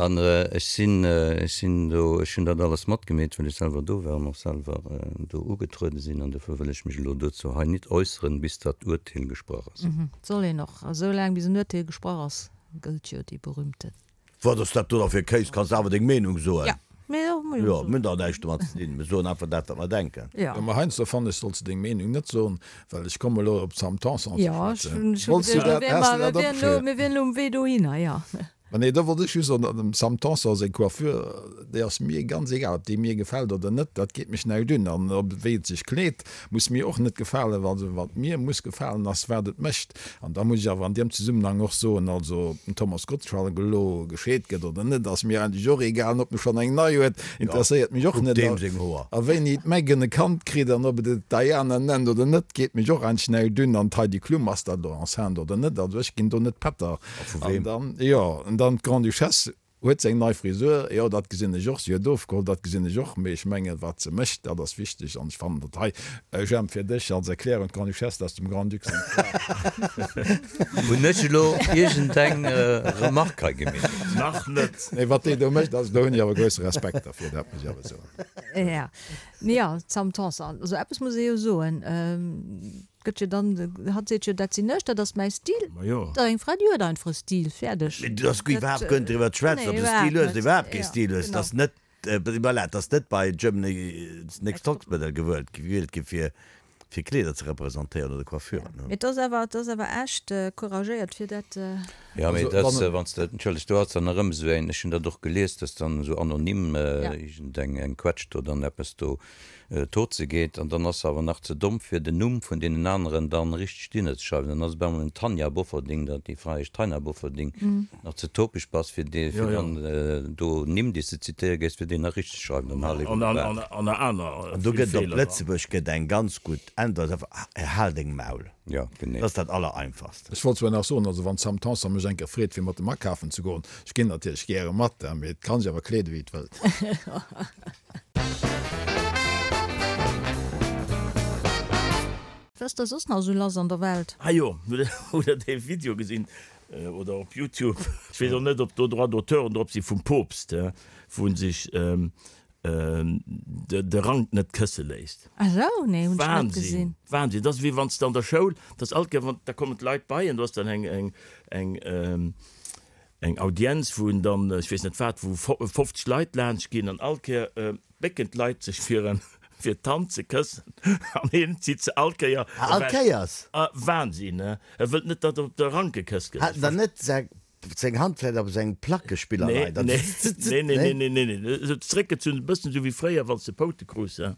An ech sinn, ech sinn do, ech hunn dat alles matgemeet, well ech selwer do war an och selwer do ugetruede sinn. An dofir wëll ech mech elo dozou hei nit äusseren, bis dat Urteel gesprach ass. Et soll een och esou laang, bis en Urteel gesprach ass, gëllt jo déi berühmte. Wat ass dat do da fir Kéis? Kanns awer deng Meenung soen. Ja, mee jo, muss jo Jo, soen. mir hunn dach näischt domat ze dinn. Mir soen einfach dat, wat mer denken. Ja. Jo, mä heiansdo fannen ech, solls de deng Meenung net soen, well ech komme elo op d'Sam Tanson ze Ja, ech schwätzen. hunn scho Wollts du geduecht, dat, mir has de wären dat elo, opgeschriwwen? mir wären elo um Wee dohinner, ja. Mä nee, do wollt ech just soen, dem Sam Tanson seng Coiffure, déi ass mir ganz egal, ob déi mir gefält oder net, dat geet mech näischt un. An ob wéi et sech kleet, muss mir och net gefalen. Also wat mir muss gefalen, ass wat et mécht. An da muss ech awer an deem Zesummenhang och soen, also ob den Thomas Gottschalk elo gescheet gëtt oder net, ass mir eigentlech och egal. An ob e schonn eng nei huet, interesséiert mech och net. A wéini d'Meghan e Kand kritt an ob et et Diana nennt oder net, geet mech och eigentlech näischt un. An d'Heidi Klum, ass dat elo enceinte oder net? Also ech ginn do net Pätter. An dann, jo, an dann d'Grande-Duchesse. Huet se eng nei Frisur? Jo, dat gesinn ech och. Si huet ofgeholl, dat gesinn ech och. Mee ech mengen, wat se mécht, dat ass wichteg. An ech fannen dat hei, Jemp, fir dech als Erklärung, d'Grande-Duchesse ass dem Grand-Duc seng Fra. Hunn ech elo iergendeng Remark hei gemeet? Nach net. Nee, wat déi do mécht, also do hunn ech awer grousse Respekt dervir, dat muss ech awer soen. Jo, mee jo, d'Sam Tanson, also eppes muss ee jo soen, Gëtt jo dann, hatt seet jo, dat sinn ech, dat ass mäi Stil. Ma jo. Da eng Fra, déi huet einfach e Stil, fäerdeg. Mee du ass guer iwwerhaapt guer net driwwer ze schwätzen, ob se Stil huet oder iwwerhaapt kee Stil huet. Et ass net, voilà, et ass net bei Germany's Next Topmodel gewuelt, gewielt gi fir, fir Kleeder ze representéieren oder Coiffuren. Mee et ass awer, et ass awer echt couragéiert fir dat. Jo, mee et ass, wann s de, entschëlleg, do ass dann erëm esou eng, ech hunn dat och gelies, dass dann esou anonym iergendeng eng Quetsch do dann eppes do Tot ze geet, an dann ass se awer nach ze domm fir den Numm vun deenen aneren dann richteg dinner ze schreiwen, dann ass et op eemol en Tanja Bofferding, dat déi Fra heescht Taina Bofferding, nach ze topeg bass fir dee fir dann do Nimm déi s de zitéiere géifs fir déi nach richteg ze schreiwen, dann hal eben de Bak. An aner An do vill gëtt et op Feeler. Lëtzebuerg gëtt eng ganz gutt Äntwert, einfach, Hal deng Maul. Jo, genee. Dat ass dat Allereinfachst. Ech wollt zwar nach soen, also wann d'Sam Tanson mech eng Kéier freet fir mat em akafen ze goen, ech ginn natierlech gäre mat, mee et kann sech awer kleede wéi et wëllt. Wat ass da soss nach esou lass an der Welt? Ah jo, hutt der dee Video gesinn, oder op Youtube, ech weess och net ob do Droits d'auteuren drop si vum Poopst, wou en sech de Rank net kësse léisst. Ah sou, nee hunn ech net gesinn. Wahnsinn, Wahnsinn, dat ass wéi wann s de an der Schoul, dat ass alt gär, wann da kommen d'Leit bei en, do ass dann eng eng eng eng Audienz, wou en dann, ech weess net wat, wou 50 Leit laanscht ginn an all Kéier bécken d'Leit sech fir en fir d'Hand ze këssen an hien zitt se all Kéier Ah, all ewech. Kéiers? Ah, Wahnsinn, he? E wëllt net, datt op de Rank gekësst gëtt. Hat en dann net seng Hand vläit op sengem Plackespiller Nee, leit an nee, zzt, nee, nee, nee? nee, nee, nee, nee, esou zeréckgezunn, e bëssen esou wéi fréier, wann s de Poute krus, he?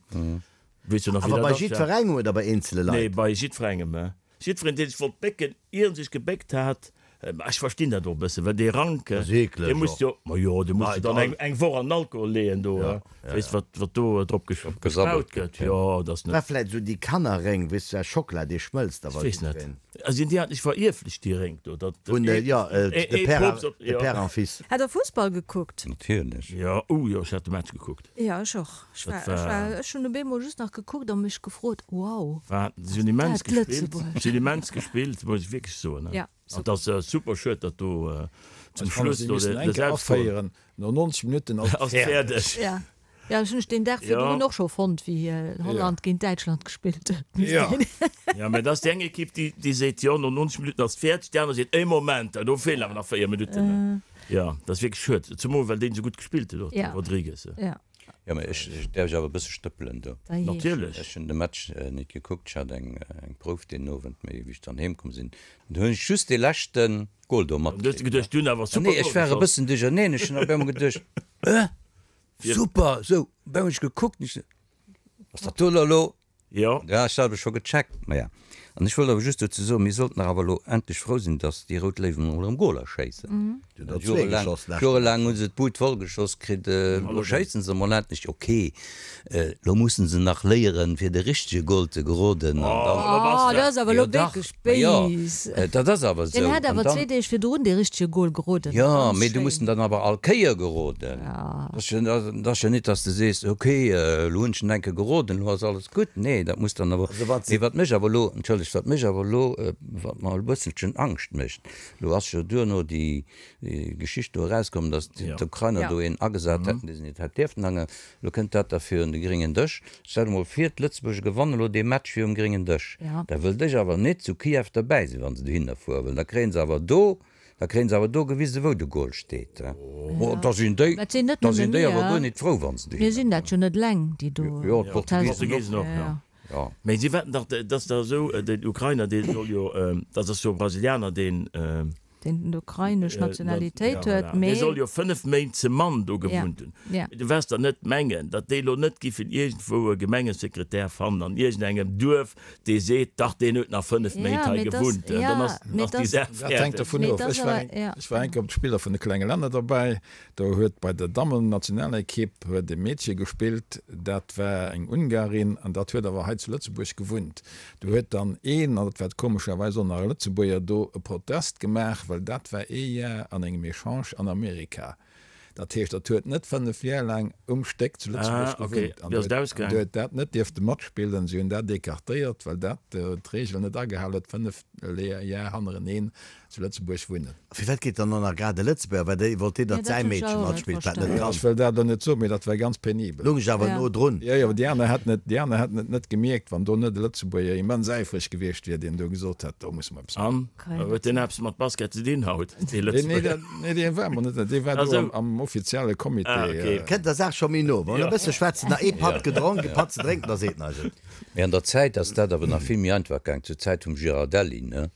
Weess jo nach, wéi Awer dat bei ass, ja. jiddwerengem oder bei eenzele Nee, Leit? bei jiddwerengem, he? Jiddwereen, dee sech wollt bécken, ier en sech gebéckt hat. Mä ech verstinn dat och e bëssen, well dee Rank, dee muss jo, ma jo, dee muss jo dann eng, eng Woch an den Alkohol leeën do, weess wat, wat do drop gespaut gëtt. Jo, dat ass net. War vläit esou déi Kannerréng, weess du, aus Schockela, dee schmëlzt da, Ech weess net. Sinn déi eigentlech verierflecht, déi Rénk do, datt Vun, jo, de Père, de Père en Fils. Hat der Fussball gekuckt? Natierlech. Jo, oh jo, ech hat de Match gekuckt. Jo, ech och. Ech war, ech war, ech hunn op eemol just nach gekuckt a mech gefrot, wow, War, si hunn immens gespillt, si hunn immens gespillt, muss ech wierklech soen. Ja, An et ass super schued, datt do zum Ech fannen, Schluss si do missten de eng Kéier Selbstgol aféieren, no 90 Minutten ass et ass fäerdeg. fäerdeg. Ja, ja, ech hunn ech deen Dag virdrun och scho fonnt, wéi Holland géint Däitschland gespillt huet. Ja. Ja, mä dat ass déi eng Ekipp, déi, déi seet, jo, no 90 Minutten ass et fäerdeg, déi aner seet, ee Moment, do feelen awer nach 4 Minutten. Jo, dat ass wierklech schued, zemol well deen esou gutt gespillt huet och, de Rodrigues. Ja. Jo, mä ech, ech däerf ech awer e bësse stëppelen do? Natierlech. Ech hunn de Match nit gekuckt, ech hat eng, eng Prouf deen Owend, mee wéi ech dann heem komm sinn, du hunn ech just dee leschte Gol do Du hues matkritt. geduecht, du hunn awer super Nee, ech Gol war e geschoss. bëssen duercherneen, ech hunn op eemol geduecht, Äh, super! Sou, op eemol hunn ech gekuckt, ech sou, Ass dat do elo? Jo. Ja, ech hat awer scho gecheckt. Maja, an ech wollt awer just dozou soen, mir sollten dach awer elo endlech frou sinn, datt déi Rout Léiwen emol erëm Goler schéissen. Déi hunn der zwee geschoss d'lescht Jorelaang hu se d'Bud voll geschoss kritt, elo schéissen se emol endlech. Ok, elo mussen se nach léieren, fir de richtege Gol ze geroden an dann. Oh, dat ass awer elo Jo dach, wierklech ma jo, béis. dat ass awer esou. Deen hat An awer dann. zwee Deeg virdrun dee richtege Gol geroden. Jo, Ganz mee du muss schéin. en dann awer all Kéier geroden. Dat ass jo net, dass de sees, ok, elo hunn ech en eng Kéier geroden, elo ass alles gutt. Nee, dat muss dann awer. Mee wat mech awer elo, entschëllegt, wat mech awer elo, wat mer e bësselchen Angscht mécht, elo ass jo duerno déi Geschicht do erauskomm, dass d'Ukrainer do een agesat hätten, dee se net hätt dierften ange. Elo kënnt dat da virun de gréngen Dësch. Stell der mol vir, d'Lëtzebuerger gewannen elo dee Match virum gréngen Dësch. Da wëllt ech awer net zu Kiew derbäi sinn, wa se dohinner fueren, well da kréien se awer do, da kréien se awer do gewisen, wou de Goal steet. Oh, da sinn déi, Dat sinn net da nëmme sinn déi awer mir. guer net frou, wa se Mir dohinner sinn dat fueren. jo net eleng, déi do Jo, d'Portugisen Portugisen och, jo. Jo. Mee si wetten dach, dat ass dach esou, den Ukrainer, dee soll jo, dat ass jo e Brasilianer, deen, Deen ukrainesch Nationalitéit huet, mee. Dee soll jo 5 Méint ze mann do gewunnt hunn. Mee du waers der net mengen, datt déi elo net giffen iergendwou e Gemengesekretär fannen an iergendengem Duerf, dee seet, dach deen huet nach 5 Méint hei gewunnt. Dann ass déi Saach Dat hänkt fäerdeg. dovun of. Ech war eng, ech war eng Kéier op d'Spiller vun de klenge Länner derbäi. Do huet bei der Dammennationalekipp huet e Meedche gespillt, dat war eng Ungarin an dat huet awer hei zu Lëtzebuerg gewunnt. Do huet dann een, an dat war komescherweis och nach e Lëtzebuerger, do e Protest gemaach, well dat war ee Jar an engem Echange an Amerika. Dat heescht, dat huet net 5 Jar laang um Stéck zu Lëtzebuerg gewunnt an huet dat net dierfte matspillen. Si hunn dat écartéiert, well dat d'Reegel net agehal huet, 5 Jar hannereneen zu Lëtzebuerg wunnen. A firwat geet dann och nach grad e Lëtzebuerger? Well déi wollt deen, datt säi Meedche matspillt, wat net kann. Ech wëll dat elo net soen, mee dat war ganz penibel. Lung ech awer no drun. Jo, jo, déi aner hätten et, déi aner hätten et net gemierkt, wann do net e Lëtzebuerger immens äifreg gewiescht wier, deen do gesot hätt, do musse mer eppes maachen. An, huet deen eppes mat Basket ze dinn haut, dee Nee, Lëtzebuerger? nee, dee war mer net, dee war do am offizielle Comité. Kënnt der Saach scho méi no. Wann e bësse schwätzen, nach ee Patt gedronk, e Patt ze drénken, da seet en eis et. Mee an der Zäit ass dat awer nach vill méi einfach gaang, zur Zäit vum Girardelli, ne?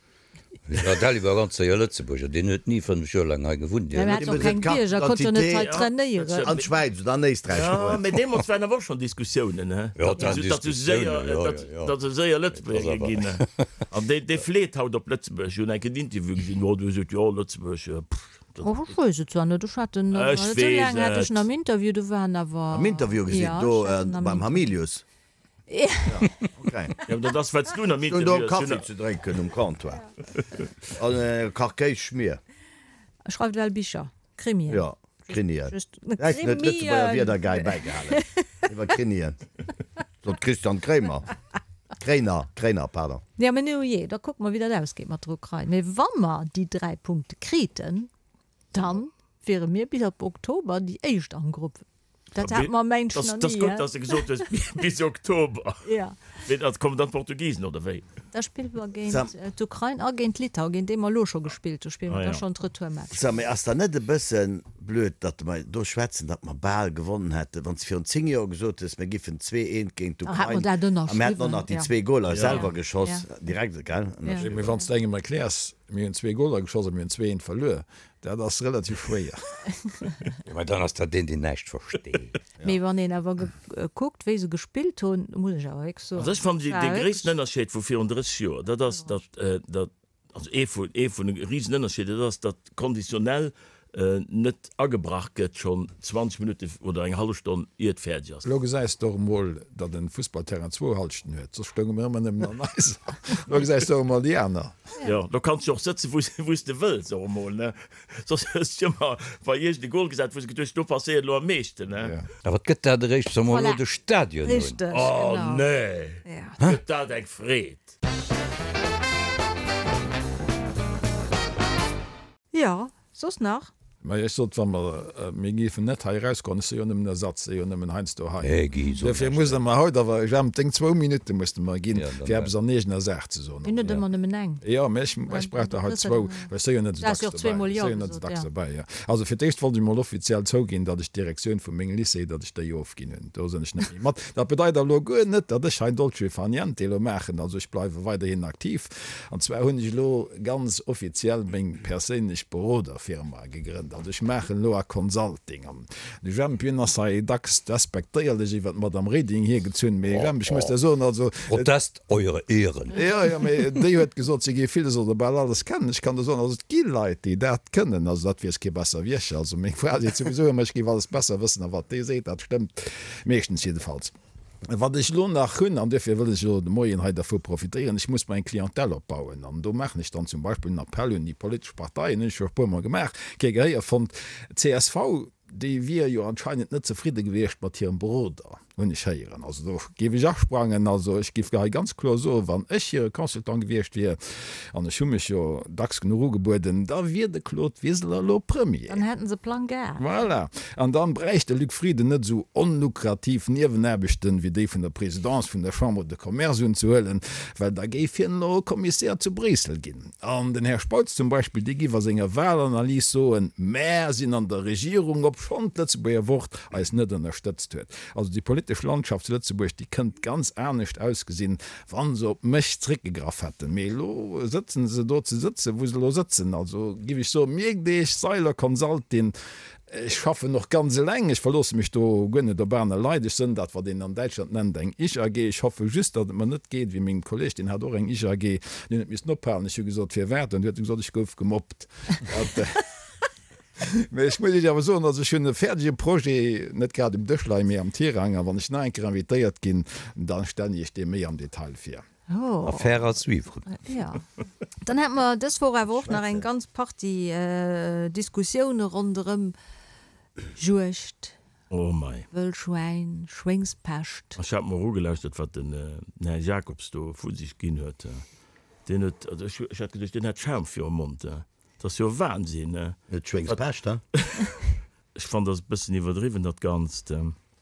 Girardelli war ganz séier Lëtzebuerger, deen huet ni 5 Joer laang hei gewunnt. Deen hat och keng Bierger, konnt jo net hei trainéieren. An d'Schwäiz oder an Éisträich Jo, geholl. mee deemools waren awer och schonn Diskussiounen, he, Jo, et waren datt se séier, Diskussiounen, jo, jo, jo. datt se séier Lëtzebuerger ginn. An dee, dee fleet haut op Lëtzebuerg. Ech hunn eng Kéier en Interview gesinn, jo, do huet e gesot, jo, Lëtzebuerg, pff, dat. Oh, ech weess et zwar net, ech hat en, Ech esou weess laang hat ech et. en am Interview, do war en awer. Am Interview gesinn, Jo, do ech hat en am beim Interview. Hamilius. Okay. Ja, dat ass wat s du am Ech hunn do Interview Kaffi ze drénken um Comptoir an e Kach Kéis-Schmier. E schreift well Bicher, Krimien. Jo, Krimien. Just, Hätt net d'Lëtzebuerger Wierder gei bäigehalen iwwer Krimien. Sot Christian Kréimer. Kréiner, Kréiner, pardon. Ja, mä nu jee, da kucke mer, wéi dat ausgeet mat der Ukrain. Mee wa mer déi 3 Punkte kriten, dann wiere mir bis op Oktober déi éischt am Grupp. Dat hat mer mengt Das, nach das ni, gutt, hä? dass de gesot hues bis Oktober. Ja. Mee dat kommen dann d'Portugisen oder wéi? Da spille mer géint Sam. d'Ukrain a géint Litauen, géint déi mer elo scho gespillt hu, spille Ah mer da ja. schonn d'Retourmatch. Sam, mee ass dann net e bësse blöd, datt mer do schwätzen, datt mer bal gewonnen hätten? Wann s de virun 10 Joer gesot hues, mir giffen 2, 1 géint Da hätt mer d'Ukrain dat a mir hätten och ënnerschriwwen, nach déi ja. zwee Goler Ja. selwer geschoss, Ja. direkt, gell, Ja. ënnerschriwwen. Mee wann s de engem erkläers, mir hunn zwee Goler geschoss a mir hunn 2, 1 verluer, Dat ass relativ schwéier. Jo, mä dann ass dat deen, deen näischt versteet. Mee wann een awer gekuckt, wéi se gespillt hunn, muss ech awer wierklech soen, Also ech fannen dat dee war gréissten wierklech. Ënnerscheed vu virun 30 Joer, dat ass, datt, datt. Also ee vun, ee vun de Risenënnerscheeder, dat ass, datt conditionnel net agebrach gëtt schonn 20 Minutten oder eng hallef Stonn ier et fäerdeg ass. Elo gesäis de och emol, datt en Fussballterrain zwou Halschten huet, soss stounge mir ëmmer nëmmen an eiser. Elo gesäis de och emol déi aner. Jo, do kanns de och sëtzen, wou s de wëlls och emol, ne? Soss hues de ëmmer bei iergend e Goal gesat, wou s de geduecht hues, do passéiert elo am meeschten, ne? A wat gëtt dat eréischt, wa mer elo de Stadion hunn? Richteg, Oh genau. nee, gëtt dat eng Freed! Jo, soss nach? Mä ech sot, wa mer, mir géifen net hei erausgoen, ech si jo nëmmen Ersatz, si jo nëmmen heiansdo hei. Hä Guy, so Duerfir näischt. musst Der mer haut awer, Jemp, deng zwou Minutte musst de mer ginn, Ja, dann fir eppes an eegener Saach ze soen. Mir hunn net ëmmer nëmmen eng. Jo, mä ech, ech brauch der haut zwou, well ech si jo net esou Du has dacks jo och dobäi. zweemol Ech Jo si jo net esou gesot, dacks ja. dobäi, jo. Also fir d'éischt wollt ech emol offiziell zouginn, datt ech d'Direktioun vu mengem Lycée, datt ech déi ofginn hunn. Do sinn ech net méi mat. Dat bedeit awer elo guer net, datt ech hei Dolce far niente elo maachen. Also ech bleiwe weiderhin aktiv. An zwar hunn ech elo ganz offiziell meng perséinlech Beroderfirma gegrënnt. Also ech maachen elo a Consulting. An de Jemp, hien ass hei dacks despektéierlech iwwer d'Madame Reding hiergezunn. Mee Jemp, ech muss der soen, also. Protest, Eure Ehren! Jo, jo, mee déi huet gesot, si géif villes oder bal alles kennen. Ech kann der soen, also et gi Leit, déi dat kënnen. Also dat weess kee besser wéi ech. Also meng Fra seet souwisou ëmmer, ech géif alles besser wëssen. A wat déi seet, dat stëmmt meeschtens jiddefalls. Wat ech elo nach hunn, an duerfir wëll ech elo de Moien hei dervu profitéieren, ech muss mer eng Clientèle opbauen. An do maachen ech dann zum Beispill en Appell un déi politesch Parteien, hunn ech scho e puermol gemaach, kee Gehéier fonnt. Csv, déi wier jo anscheinend net zefridde gewiescht mat hirem Beroder, hunn ech héieren. Also do géif ech asprangen. Also ech géif hei ganz kloer soen, wann ech hire Consultant gewiescht wier, an ech hu mech jo dacks genuch ugebueden, da wier de Claude Wiseler elo Premier. Dann hätten se Plang gehat. Voilà. An dann bräicht de Luc Frieden net esou onlukrativ Niewenaarbechten wéi déi vun der Présidence vun der Chambre de Commerce unzehuelen, well da géif hien elo Commissaire zu Bréissel ginn. An den Här Spautz zum Beispill, dee géif a senger Wahlanalyse soen, Mär sinn an der Regierung, obschonn d'Lëtzebuerger Wort eis net ënnerstëtzt huet. Also déi politesch Landschaft zu Lëtzebuerg, déi kënnt ganz anescht ausgesinn, Wa se op mech zréckgegraff hätten. Mee elo sëtzen se do ze sëtzen, wou se elo sëtzen. Also giff ech soen, mierkt Iech, Seiler Consulting, ech schaffen och ganz eleng, ech verloosse mech do guer net op aner Leit. Ech sënn dat, wat een an Däitschland nennt eng Ich-AG. Ech hoffe just, datt et mer net geet wéi mengem Kolleg, deen hat och eng Ich-AG, deen huet missen ophalen. Ech hu gesot, firwat? An du huet e gesot, ech gouf gemobbt. Mee ech muss Iech awer soen, also ech hunn e fäerdege Projet, net grad um Dësch leien, mee am Tirang, a wann ech nach eng Kéier invitéiert ginn, da stellen ech Iech dee méi am Detail vir. Affaire à suivre. Jo. Dann hate mer dës Woch awer och nach eng ganz Partie Diskussioune ronderëm Juegd, Oh mei. Wëllschwäin, Schwéngspescht. Ech hat mer ugelauschtert, wat den Här Jacobs do vu sech ginn huet. Deen huet, also ech hat geduecht, deen hätt Schaum virum Mond. Dat ass jo Wahnsinn, ne? Net Schwéngspescht, he? Ech fannen, dat ass e bëssen iwwerdriwwen, dat Ganzt.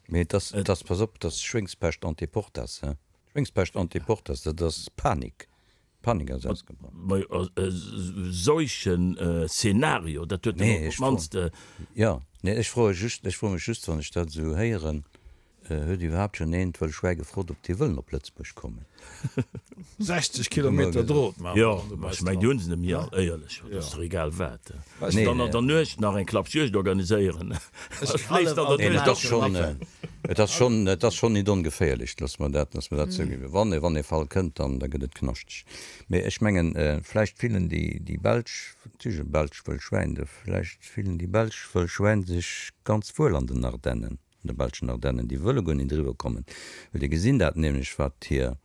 Mee et ass, et ass, pass op, et ass Schwéngspescht ante portas, he? Schwéngspescht ante portas, dat ass Panik. Panik ass ausgebrach. Mä e seuchen Szenario, dat huet en op d'mannst. Jo, nee, ech froe just, ech froe mech just, wann ech dat esou héieren, Huet iwwerhaapt schonn een d'Wëll Schwäi gefrot, ob déi wëllen op Lëtzebuerg kommen? 60 Kilometer Drot maachen Jo, ma ech mengen, déi hunn se net méi all, éierlech, dat ass dach egal wat. Dann an der Nuecht nach eng Klappjuegd organiséieren, da schléisst an der Nuecht och schonn. Et ass schonn, et ass schonn nit ongeféierlech, loosse mer dat, loosse mer dat zouginn. Wann e, wann e Fall kënnt, dann, da gëtt et knaschteg. Mee ech mengen, vläicht fillen déi, déi belsch, natierlech e belscht Wëll Schwäin, vläicht fillen déi belsch Wëll Schwäin sech ganz wuel an den Ardennen. An de belschen Ardennen, déi wëlle guer nit eriwwer kommen, well déi gesinn dat nämlech, wat hir,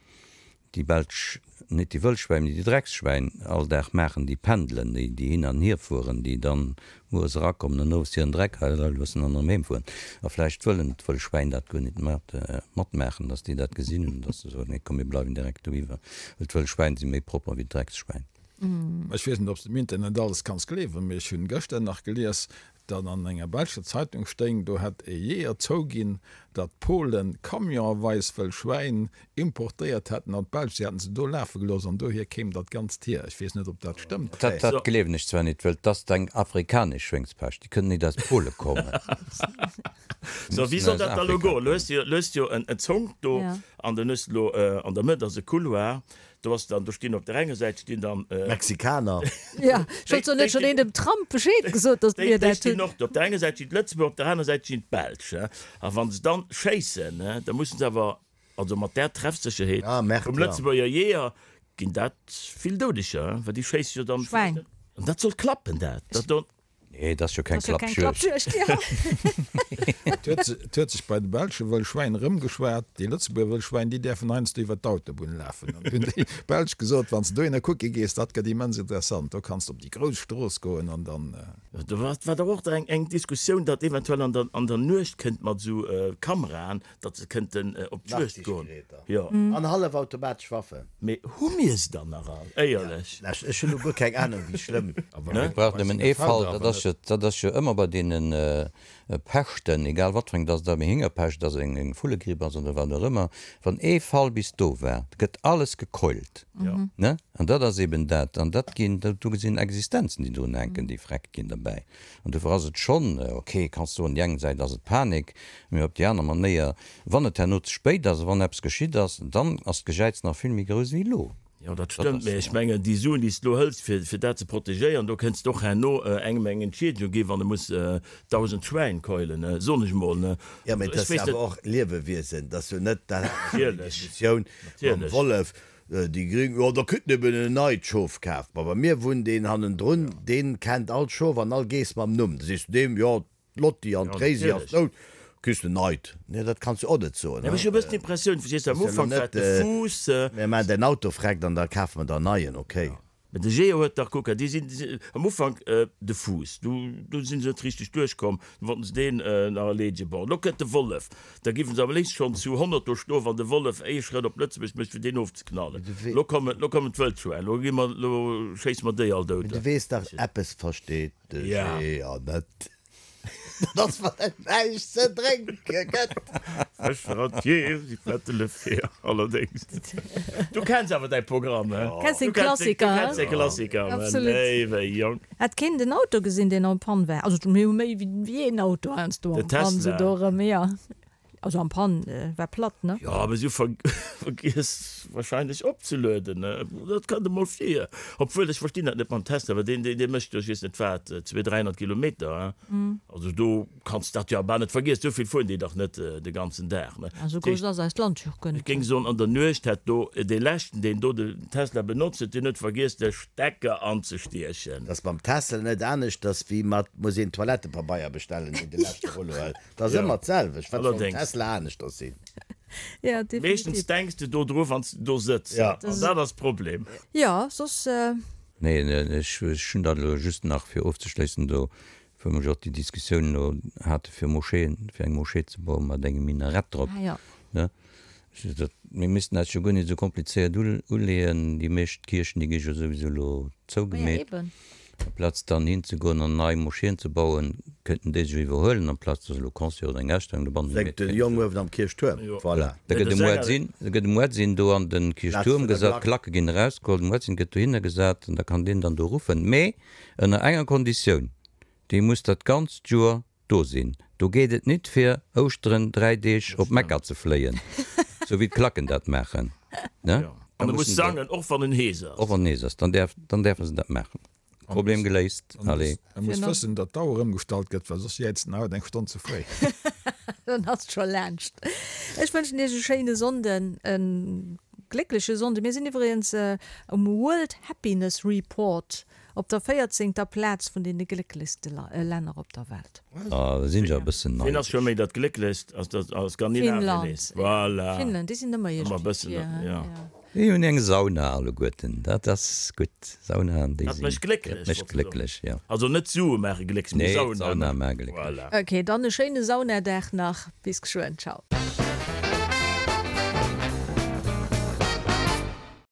déi belsch, nit déi Wëllschwäin, mee déi Drecksschwäin all Dag maachen, déi pendelen, déi, déi hin an hier fueren, déi dann mueres erakommen an owes hiren Dreck hei loossen an erëm heem fueren. A vläicht wëllen d'Wëllschwäin dat guer nit mat, matmaachen, dass déi dat gesinn hunn, dass se soen, nee komm, mir bleiwen direkt doiwwer, well d'Wëllschwäin si méi propper wéi d'Drecksschwäin. Ech weess net, ob s de im Internet alles kanns gleewen, mee ech hunn gëschter nach gelies, datt an enger belscher Zeitung stéing, do hätt e Jeeër zouginn, datt d'Polen camionweis wëll Schwäin importéiert hätten an d'Belsch, si hätten se do lafe gelooss an dohier kéim dat Ganzt hier. Ech weess net, ob dat stëmmt. Dat dat gleewen ech zwar nit, wëll 't ass eng afrikanesch Schwéngspescht, déi kënnt nit aus Pole kommen. So, wéi soll dat da lo goen? Lo hues de jo, lo hues de jo en Zonk do an dann hues de lo an der Mëtt ass e Couloir, Do ass dann, do stinn op der enger Säit stinn dann. Mexikaner. Jo, ech wollt soen, huet schonn een dem Trump Bescheed gesot, datt mir dat hunn? Déi stinn och do. Op der enger Säit stinn d'Lëtzebuerger, op der aner Säit stinn d'Belsch. A wa se dann schéissen, da mussen se awer, also mat där Treffsécherheet vum Lëtzebuerger Jeeër. Ginn dat vill Doudeger, well déi schéisse jo dann. Schwäin. An dat soll klappen, dat dat do. Nee, dat ass jo keng Klappjuegd. Et huet sech bei de belsche Wëllschwäin erëmgeschwat, déi Lëtzebuerger Wëllschwäin, déi däerfen heiansdo iwwer d'Autobunn lafen. An hunn déi Belsch gesot, Wann s de dohinner kucke gees, dat gëtt immens interessant, do kanns de op déi grouss Strooss goen an dann. Do war dach och eng Diskussioun, datt eventuell an der Nuecht kënnt mat esou Kameraen, datt se kënnten op d'Juegd goen. Jo. An hallefautomatesch Waffen. Mee hu mir se dann nach all? Éierlech? Ech hunn elo guer keng Anung, wéi schlëmm. Mir brauchen nëmmen ee Fall, dat ass jo, dat ass jo ëmmer bei deene Peschten, egal wat fir eng, dass et eng Héngerpescht ass, eng Vullegripp ass oder wat och ëmmer, wann ee Fall bis do war, da gëtt alles gekeult, ne? An dat ass eben dat. An dat ginn, do sinn Existenzen, déi drun hänken, déi vreckt ginn derbäi. An dofir ass et schonn, ok, kanns soen, déi eng Säit ass et Panik, mee op déi aner Manéier, wann et herno ze spéit ass a wann eppes geschitt ass, dann ass d'Gejäiz nach vill méi grouss wéi elo. Jo, dat stëmmt, mee ech mengen, déi Suen, déi s de elo hëls, fir, fir dat ze protegéieren, do kënns de och herno engem eng Entschiedegung ginn, wann e muss 1.000 Schwäin keulen, soen ech emol, ne? Jo, mee et ass jo awer och Liewewiesen, et ass jo net, dat hat mer schonn déi Diskussioun mam Wollef, Déi Gring, Jo, da kritt en eben en neit Schof kaf. Ma bei mir wunnt een hannendrun, deen kennt all Schof an all Geess mam Numm. Da sees du deem, Jo, d'Lotti an d'Réisi ass dout, kriss de neit. Nee, dat kanns du och net soen. Ech hu e bëssen d'Impressioun, verstees du, am Ufank war et de Fuuss. Mir maachen däin Auto freckt an da kafe mer der en neien, okay? Mä de Geo huet dach, kucke, déi sinn am Ufank de Fuuss, do do si se net richteg duerchkomm, du wollten se deen nach erleedegen. Bon, elo kënnt de Wollef, da giffen se am léifst schonn zu 100 do stoen, wann de Wollef ee Schrëtt op Lëtzebuerg mécht, fir deen ofzeknallen. Elo kommen, elo kommen d'Wëldschwäin, elo gi mer, elo schéisse mer déi all dout. Mä du weess dach, eppes versteet de Geo net. Dat ass, wann et näischt ze drénke gëtt. Fëscheratier, si fette le fer, allerdéngs. Du kenns awer däi Programm, he? Kenns den Klassiker, Du kenns de Klassiker, Absolut. Léiwe Jong. Hat keen den Auto gesinn, deen en panne war? Also mir hu méi wéi een Auto heiansdo Den en panne, Tesla. sou do erëm, jo. Also en panne war platt, ne? Jo, awer si hu vergiess wahrscheinlech opzelueden, ne? Dat kënnt emol vir. Obwuel, ech verstinn dat net mam Tesla, well deen, deen mécht jo, ech weess net wat, 200, 300 Kilometer, he? Also do Kanns dat jo bal net vergiessen, esou vill fueren déi dach net de ganzen Dag, ne? Esou grouss ass eist Land jo och guer net. Ech géing soen, an der Nuecht hätt do dee leschten, deen do den Tesla benotzt huet, deen huet vergiess de Stecker anzestiechen. T'ass mam Tesla net aneschters wéi mat muss een Toilettepabeier bestellen, deen de leschte Rollo huet. T'ass ëmmer d'selwecht. Wat soll um Tesla aneschters sinn? Ja, definitiv. Meeschtens denks de do dru wanns de do sëtz, an dat ass d'Problem. Jo, soss. Nee, ech hunn dat elo just nach fir ofzeschléissen do Wou mer jo och déi Diskussioun elo hate fir Moscheeën, fir eng Moschee ze bauen mat engem Minarett drop, ne? Dat, mir missten eis jo guer net esou komplizéiert uleeën. Déi meescht Kierchen, déi gi jo souwisou elo zougemeet. Amplaz dann hinzegoen an nei Moscheeën ze bauen, kéinten déi sech iwwerhuelen, amplaz dass elo Concert oder eng Ausstellung dobannen Wéngt de Jong uewen am Kierchtuerm, voilà. Da gëtt e Muezzin, da gëtt e Muezzin do an de Kierchtuerm gesat, d'Klacke ginn erausgeholl, de Muezzin gëtt dohinner gesat an da kann deen dann do ruffen. Mee Ënner enger Konditioun, dee muss dat ganzt Joer do sinn. Do geet et nit fir Ouschteren 3 Deeg op Mekka ze fléien, sou wéi d'Klacken dat maachen, ne? An e muss sangen, och wann en hees ass. Och wann en hees ass, dann däerf, dann däerfe se dat maachen. Problem geléist, allez. E muss wëssen, datt d'Auer ëmgestallt gëtt, well soss jäizt en haut eng Stonn ze fréi. Dann ass et scho laanscht. Ech wënschen iech e schéine Sonnden, e gléckleche Sonnden. Mir sinn iwwregens um World Happiness Report op der véierzéngter Plaz vun deene glécklechste Länner op der Welt. Ah, da sinn ech awer e bëssen Ween ass scho neidesch. méi dat Glécklechst? Ass dat a Skandinavien Finnland, nees? Voilà. Finnland, déi sinn ëmmer Ëmmer e iergendwéi bëssen, vir, ja. ja. Déi hunn eng Sauna alleguerten, dat ass gutt. Saunaen, déi Dat sinn, mécht glécklech, dat mécht wollt se soen. glécklech, jo. Also net d'Sue maache glécklech, mee Nee, Sauna d'Sauna maache glécklech. Voilà. Ok, dann e schéine Saunadag nach. Bis geschwënn, ciao.